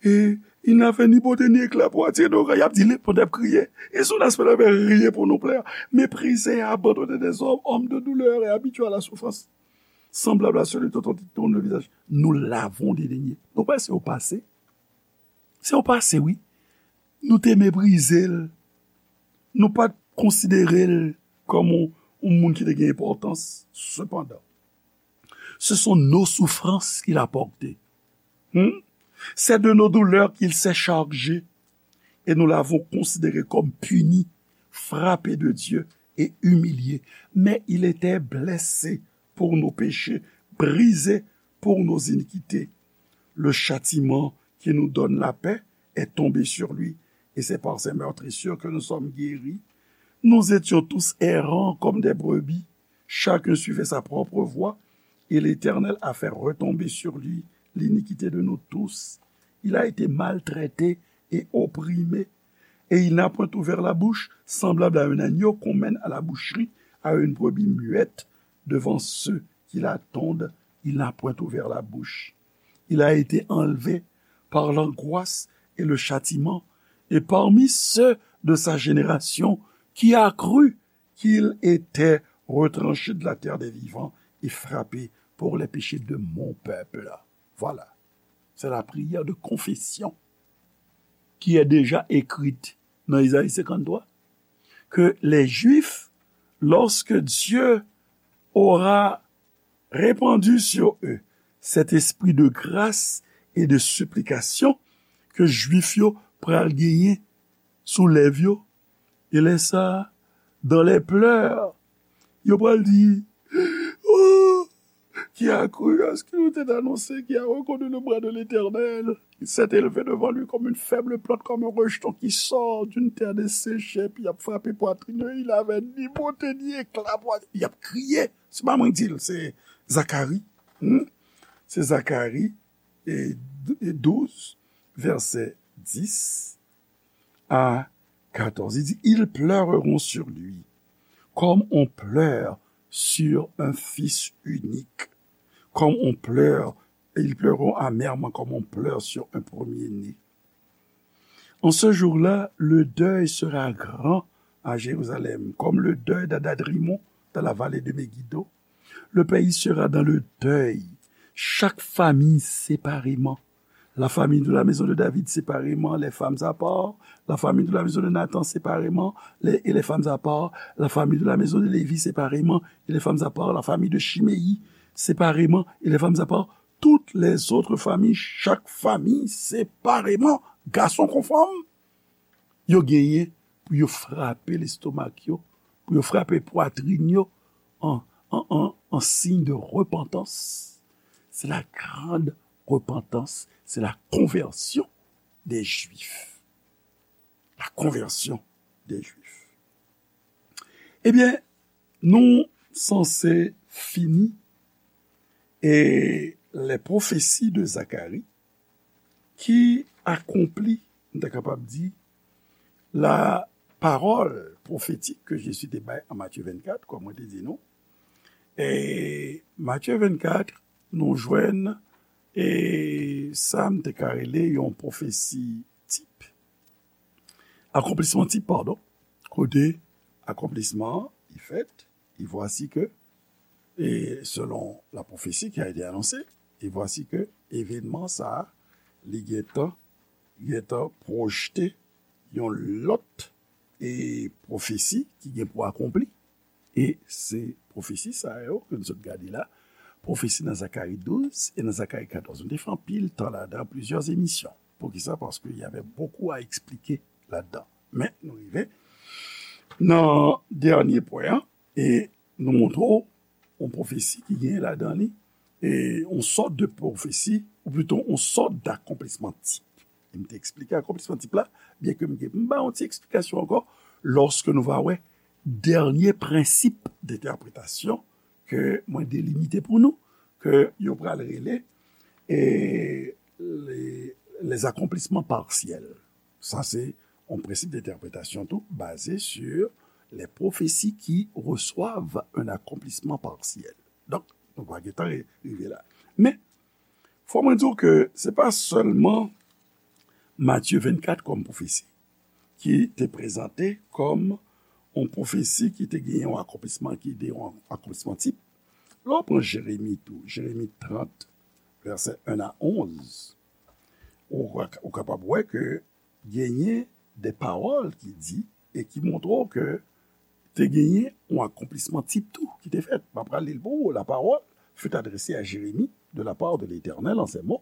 et il n'avait ni beauté ni éclat pour attirer nos regards. Y ap di, li, pandan y ap kriye, et son aspect n'avait rien pour nous plaire. Méprisé et abandonné des hommes, homme de douleur et habitué à la souffrance, semblable à celui dont on détourne le visage. Nous l'avons dédaigné. Nou pa se yo pase. Se yon pase, wi. Nou te meprize l. Nou pa t konsidere l kòm yon, yon moun ki te gen enpòtans. Sepandan, ce sont nos souffrances qu'il a portées. Hmm? C'est de nos douleurs qu'il s'est chargé, et nous l'avons considéré comme puni, frappé de Dieu et humilié. Mais il était blessé pour nos péchés, brisé pour nos iniquités. Le châtiment qui nous donne la paix est tombé sur lui, et c'est par ses meurtrissures que nous sommes guéris. Nous étions tous errants comme des brebis, chacun suivait sa propre voie, et l'Éternel a fait retomber sur lui l'iniquité de nous tous. Il a été maltraité et opprimé, et il n'a point ouvert la bouche, semblable à un agneau qu'on mène à la boucherie, à une brebis muette, devant ceux qui la tondent, il n'a point ouvert la bouche. Il a été enlevé par l'angoisse et le châtiment, et parmi ceux de sa génération, qui a cru qu'il était retranché de la terre des vivants et frappé pour les péchés de mon peuple. Voilà. C'est la prière de confession qui est déjà écrite dans Isaïe cinquante-trois, que les Juifs, lorsque Dieu aura répandu sur eux cet esprit de grâce et de supplication, ke Jwif yo pral genyen sou lèv yo, e lè sa, dans les pleurs, yo pral di, oh, qui a cru à ce qu'il nous était annoncé, qui a reconnu le bras de l'Éternel. Il s'est élevé devant lui comme une faible plante, comme un rejeton qui sort d'une terre desséchée, puis il a frappé poitrine, il avait ni beauté ni éclat, il a crié. Se pa mwen ki di l, se Zakari. Hmm? Se Zakari, e, e douz, vèsè dis a katòz. Li di, ils pleureront sur lui, comme on pleure sur un fils unique, comme on pleure, et ils pleureront amèrement, comme on pleure sur un premier-né. En ce jour-là, le deuil sera grand à Jérusalem, comme le deuil d'Adad-Rimon dans la vallée de Megiddo. Le pays sera dans le deuil, chaque famille séparément. La famille de la maison de David séparément, les femmes à part. La famille de la maison de Nathan séparément, les, et les femmes à part. La famille de la maison de Lévi séparément, et les femmes à part. La famille de Chiméi séparément, et les femmes à part. Toutes les autres familles, chaque famille séparément, gason kon fanm, yo genyen pou yo frape lestomak yo, pou yo frape pwatrin yo an, an, an, an siy de repantans. C'est la grande repentance, c'est la conversion des Juifs. La conversion des Juifs. Ebyen, nou sanse fini e les prophéties de Zacharie ki akonpli, nou ta kapab di, la parole pwofetik ke Jezi te bay an Matye vennkat, kòm mwen te di nou. E Matye vennkat, nou jwenn e sa m te ka rele yon pwofesi tip. Akonplisman tip, padon. Kote akonplisman an, li fèt, e vwasi ke, e selon la prophétie qui a été annoncée, e vwasi ke evenman sa a, li gentan, gentan pwojte yon lòt e pwofesi ki gen pou akonpli. E se pwofesi sa yo ke nou sot gade la, pwofesi nan Zakari douz e nan Zakari katòz. Nou te fè anpil tan ladan, plizyè emisyon. Poukisa? Paske y avè bokou a eksplike ladan. Men nou rive nan dènye pwen an, e nou montre w yon pwofesi ki gen ladan li, e yon sòt de pwofesi, ou plito yon sòt d'akonplisman tip. E m te eksplike akonplisman tip la, byen ke m gen, m ba yon ti eksplikasyon ankò, lòske nou va wè dènye prensip d'entèpretasyon ke mwen delimite pou nou, ke yo pral rele, e, les, les accomplissements partiels. Sa se yon prensip d'entèpretasyon tou, basé sur les prophéties qui reçoivent un accomplissement partiel. Donk, nou pa gentan ri-, rive la. Men, fò mwen di w ke se pa sèlman Matye vennkat kòm pwofesi ki te prezante kòm yon pwofesi ki te gen yon akonplisman, ki te yon akonplisman tip. Lè w pran Jeremi tou, Jeremi trant, vèsè en a onz, ou, ou kapab wè ke genyen de pawòl ki di e ki montre w ke te genyen yon akonplisman tip tou ki te fèt. M ap pral li l pou ou. La parole fut adressée à Jérémie de la part de l'Éternel en ces mots.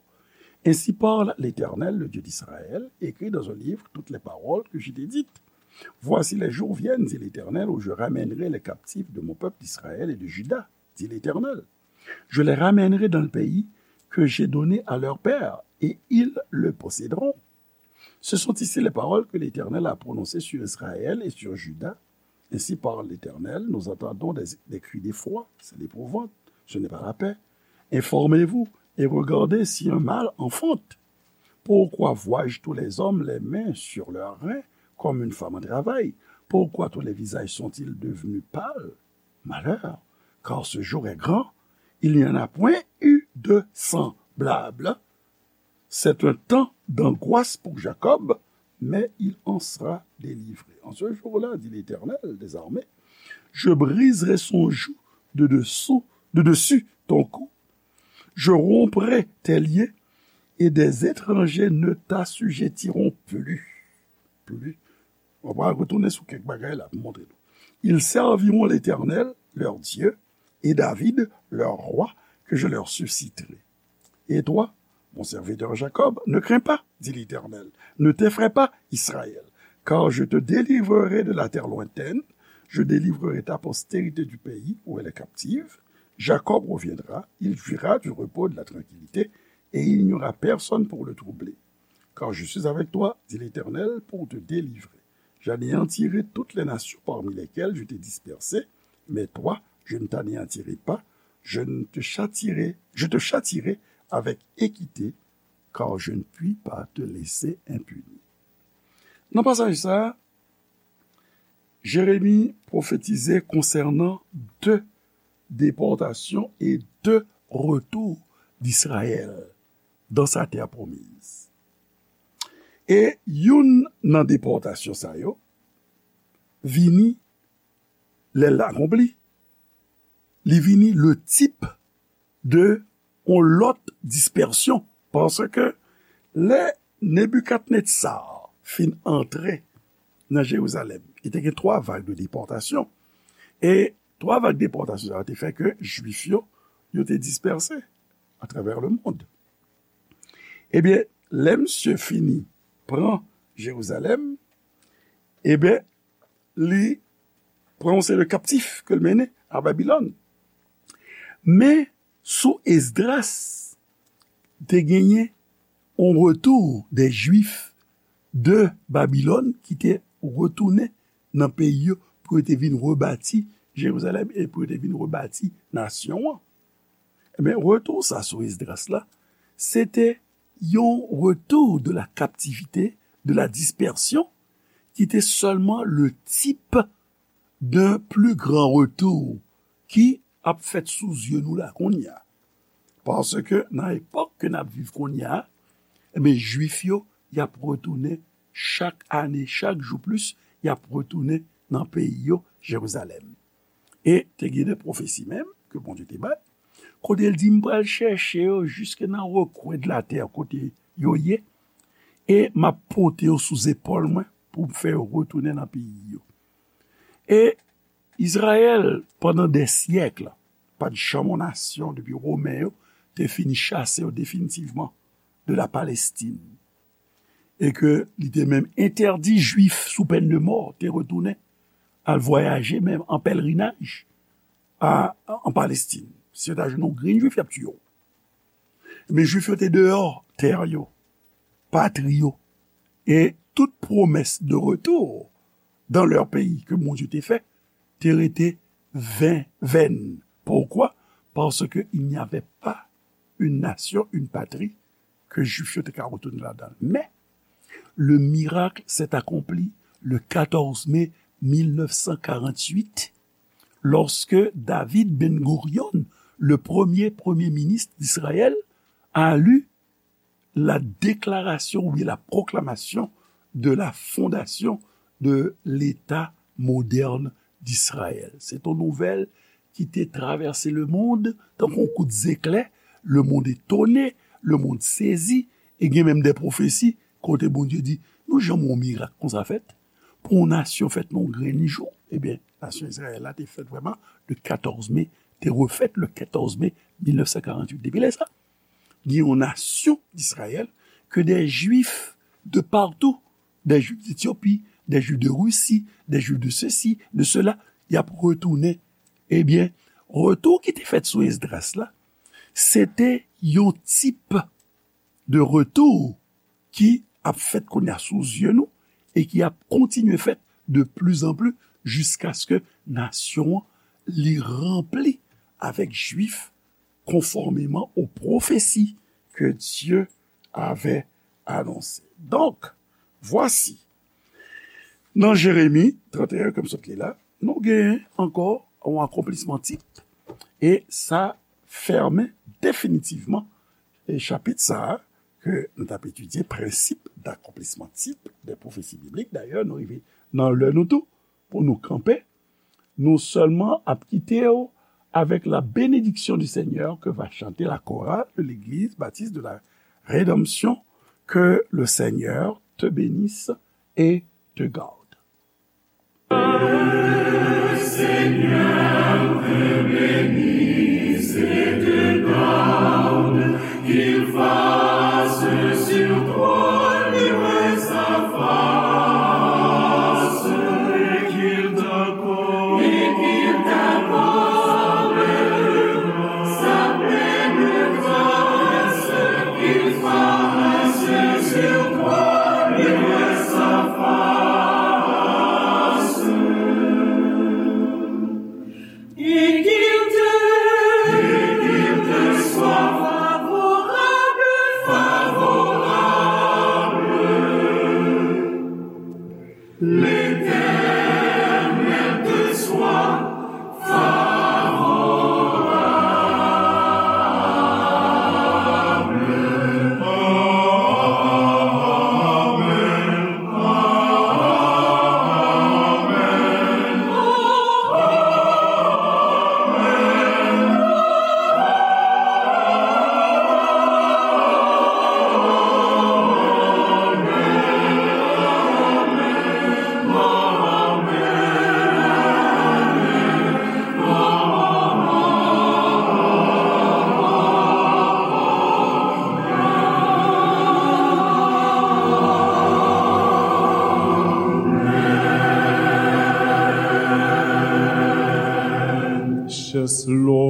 Ainsi parle l'Éternel, le Dieu d'Israël, écris dans un livre toutes les paroles que je t'ai dites. Voici, les jours viennent, dit l'Éternel, où je ramènerai les captifs de mon peuple d'Israël et de Juda, dit l'Éternel. Je les ramènerai dans le pays que j'ai donné à leur père, et ils le posséderont. Ce sont ici les paroles que l'Éternel a prononcées sur Israël et sur Juda. Ainsi parle l'Éternel, nous entendons des, des cris d'effroi, c'est l'épouvante, ce n'est pas la paix. Informez-vous et regardez si un mâle enfante. Pourquoi vois-je tous les hommes les mains sur leurs reins comme une femme en travail? Pourquoi tous les visages sont-ils devenus pâles? Malheur, car ce jour est grand, il n'y en a point eu de semblable. C'est un temps d'angoisse pour Jacob, mais il en sera délivré. En ce jour-là, dit l'Éternel des armées, je briserai son joug de dessous, de dessus ton cou. Je romprai tes liens et des étrangers ne t'assujettiront plus. Plus. On va retourner sur quelques bagages là pour montrer nous. Ils serviront l'Éternel, leur Dieu, et David, leur roi, que je leur susciterai. Et toi, mon serviteur Jacob, ne crains pas, dit l'Éternel, ne t'effraie pas, Israël, car je te délivrerai de la terre lointaine, je délivrerai ta postérité du pays où elle est captive. Jacob reviendra, il jouira du repos et de la tranquillité, et il n'y aura personne pour le troubler. Car je suis avec toi, dit l'Éternel, pour te délivrer. J'anéantirai toutes les nations parmi lesquelles je t'ai dispersé, mais toi, je ne t'anéantirai pas, je ne te châtierai, je te châtierai avec équité, car je ne puis pas te laisser impuni. Nan pasaj sa a, Jeremi pwofetize konsènan de depòtasyon e de retou d'Israël dans sa terre promise. E youn nan depòtasyon sa yo vini lè l akonpli. Li vini le tip de yon lòt dispèsyon. Paske lè Nebikadnetsar fin antre nan Jerizalèm, li te gen twa vag de depòtasyon. E twa vag depòtasyon sa yo te fè ke Jwif yo, yo te dispèse atravè le mond. Ebyen, lè misye fini pran Jerizalèm, ebyen, li pran yon seri de kaptif ke l mennen a Babilòn. Men, sou Esdras, te genyen yon retou de Jwif de Babilòn ki te retounen nan peyi yo pou yo te vin rebati Jerizalèm e pou yo te vin rebati nasyon an. Ebyen, retou sa sou Esdras la, se te yon retou de la kaptivite, de la dispèsyon, ki te sèlman le type d'un plus grand retour ki ap fèt sou zye nou la kounye a. Paske nan epòk ke n ap viv kounye a, ebyen, Jwif yo, y ap retounen chak ane, chak jou plis, y ap retounen nan peyi yo, Jerizalèm. E te gen de pwofesi menm ke Bondye te bay, kote l di, "M pral chèche yo jiske nan rekwen de latè kote yo ye, e m ap pote yo sou zepòl mwen pou m fè yo retounen nan peyi yo." E Izrayèl, pandan dè syèk, pa t janm yon nasyon depi Women yo te fin chase yo definitivman de la Palestine. E ke li te menm entèdi Jwif sou pèn de mò te retounen al vwayaje menm an pèlerinaj a, an Palestine. Si yo ta jwenn yon grenn Jwif, y ap tiye w. Men Jwif yo te deyò tè yo, patri yo, e tout pwomès de retour dans leur pays ke Bondye te fè te rete ven, vèn. Poukwa? Paske il n'y avait pas une nation, une patrie ke Jwif yo te ka retounen ladan l. Men, le miracle s'est accompli le quatorze mai mille neuf cent quarante-huit, lorsque David Ben Gurion, le premier premier ministre d'Israël, a lu la déclaration ou bien la proclamation de la fondation de l'État moderne d'Israël. Se te yon nouvèl ki te travèse lemonn tankou yon kout zeklè. Lemonn etone, lemonn sezi, e gen menm de pwofesi kote Bondye di, "Nou janm wè yon mirak konsa fèt? Pou yon nasyon fèt nan yon grenn jou?" Ebyen, nasyon Izrayèl la te fèt vrèman le quatorze mai, te refèt le quatorze mai mille neuf cent quarante-huit. Depi lè sa, gen yon nasyon d'Israyèl ke des Juifs de partout, des Juifs d'Éthiopie, des Juifs de Russie, des Juifs de ceci, de cela, y ap retounen. Ebyen, retou ki te fèt sou Esdras la, se te yon tip de retou ki ap fèt kounye a sou zye nou e ki ap kontinye fèt de plus en plus jiskaske nasyon an li ranpli avèk Jwif konfòmeman aux prophéties que Dieu avait annoncées. Donk, vwasi, nan Jeremi trant e en, ke m sot li la, nou genyen ankò yon akonplisman tip, e sa fèmen definitivman e chapit sa a ke nou t ap etidye, prensip d'accomplissement type des prophéties bibliques. Dayè, nou rive nan lè nou tou pou nou kanpe. Nou sèlman ap kite w avec la bénédiction du Seigneur que va chanter la chorale de l'Église baptiste de la Rédemption. Que le Seigneur te bénisse et te garde. Le Seigneur te bénisse et te garde, qu'il fasse sur toi luire sa face, et qu'il t'accorde, et qu'il t'accorde sa pleine grâce, qu'il fasse sur toi luire sa face, et qu'il te, et qu'il te soit favorable, favorable. L'Éternel te soit favorable. Amen. Precious Lord,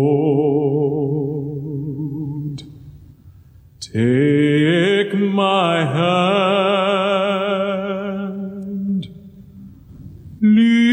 take my hand, lead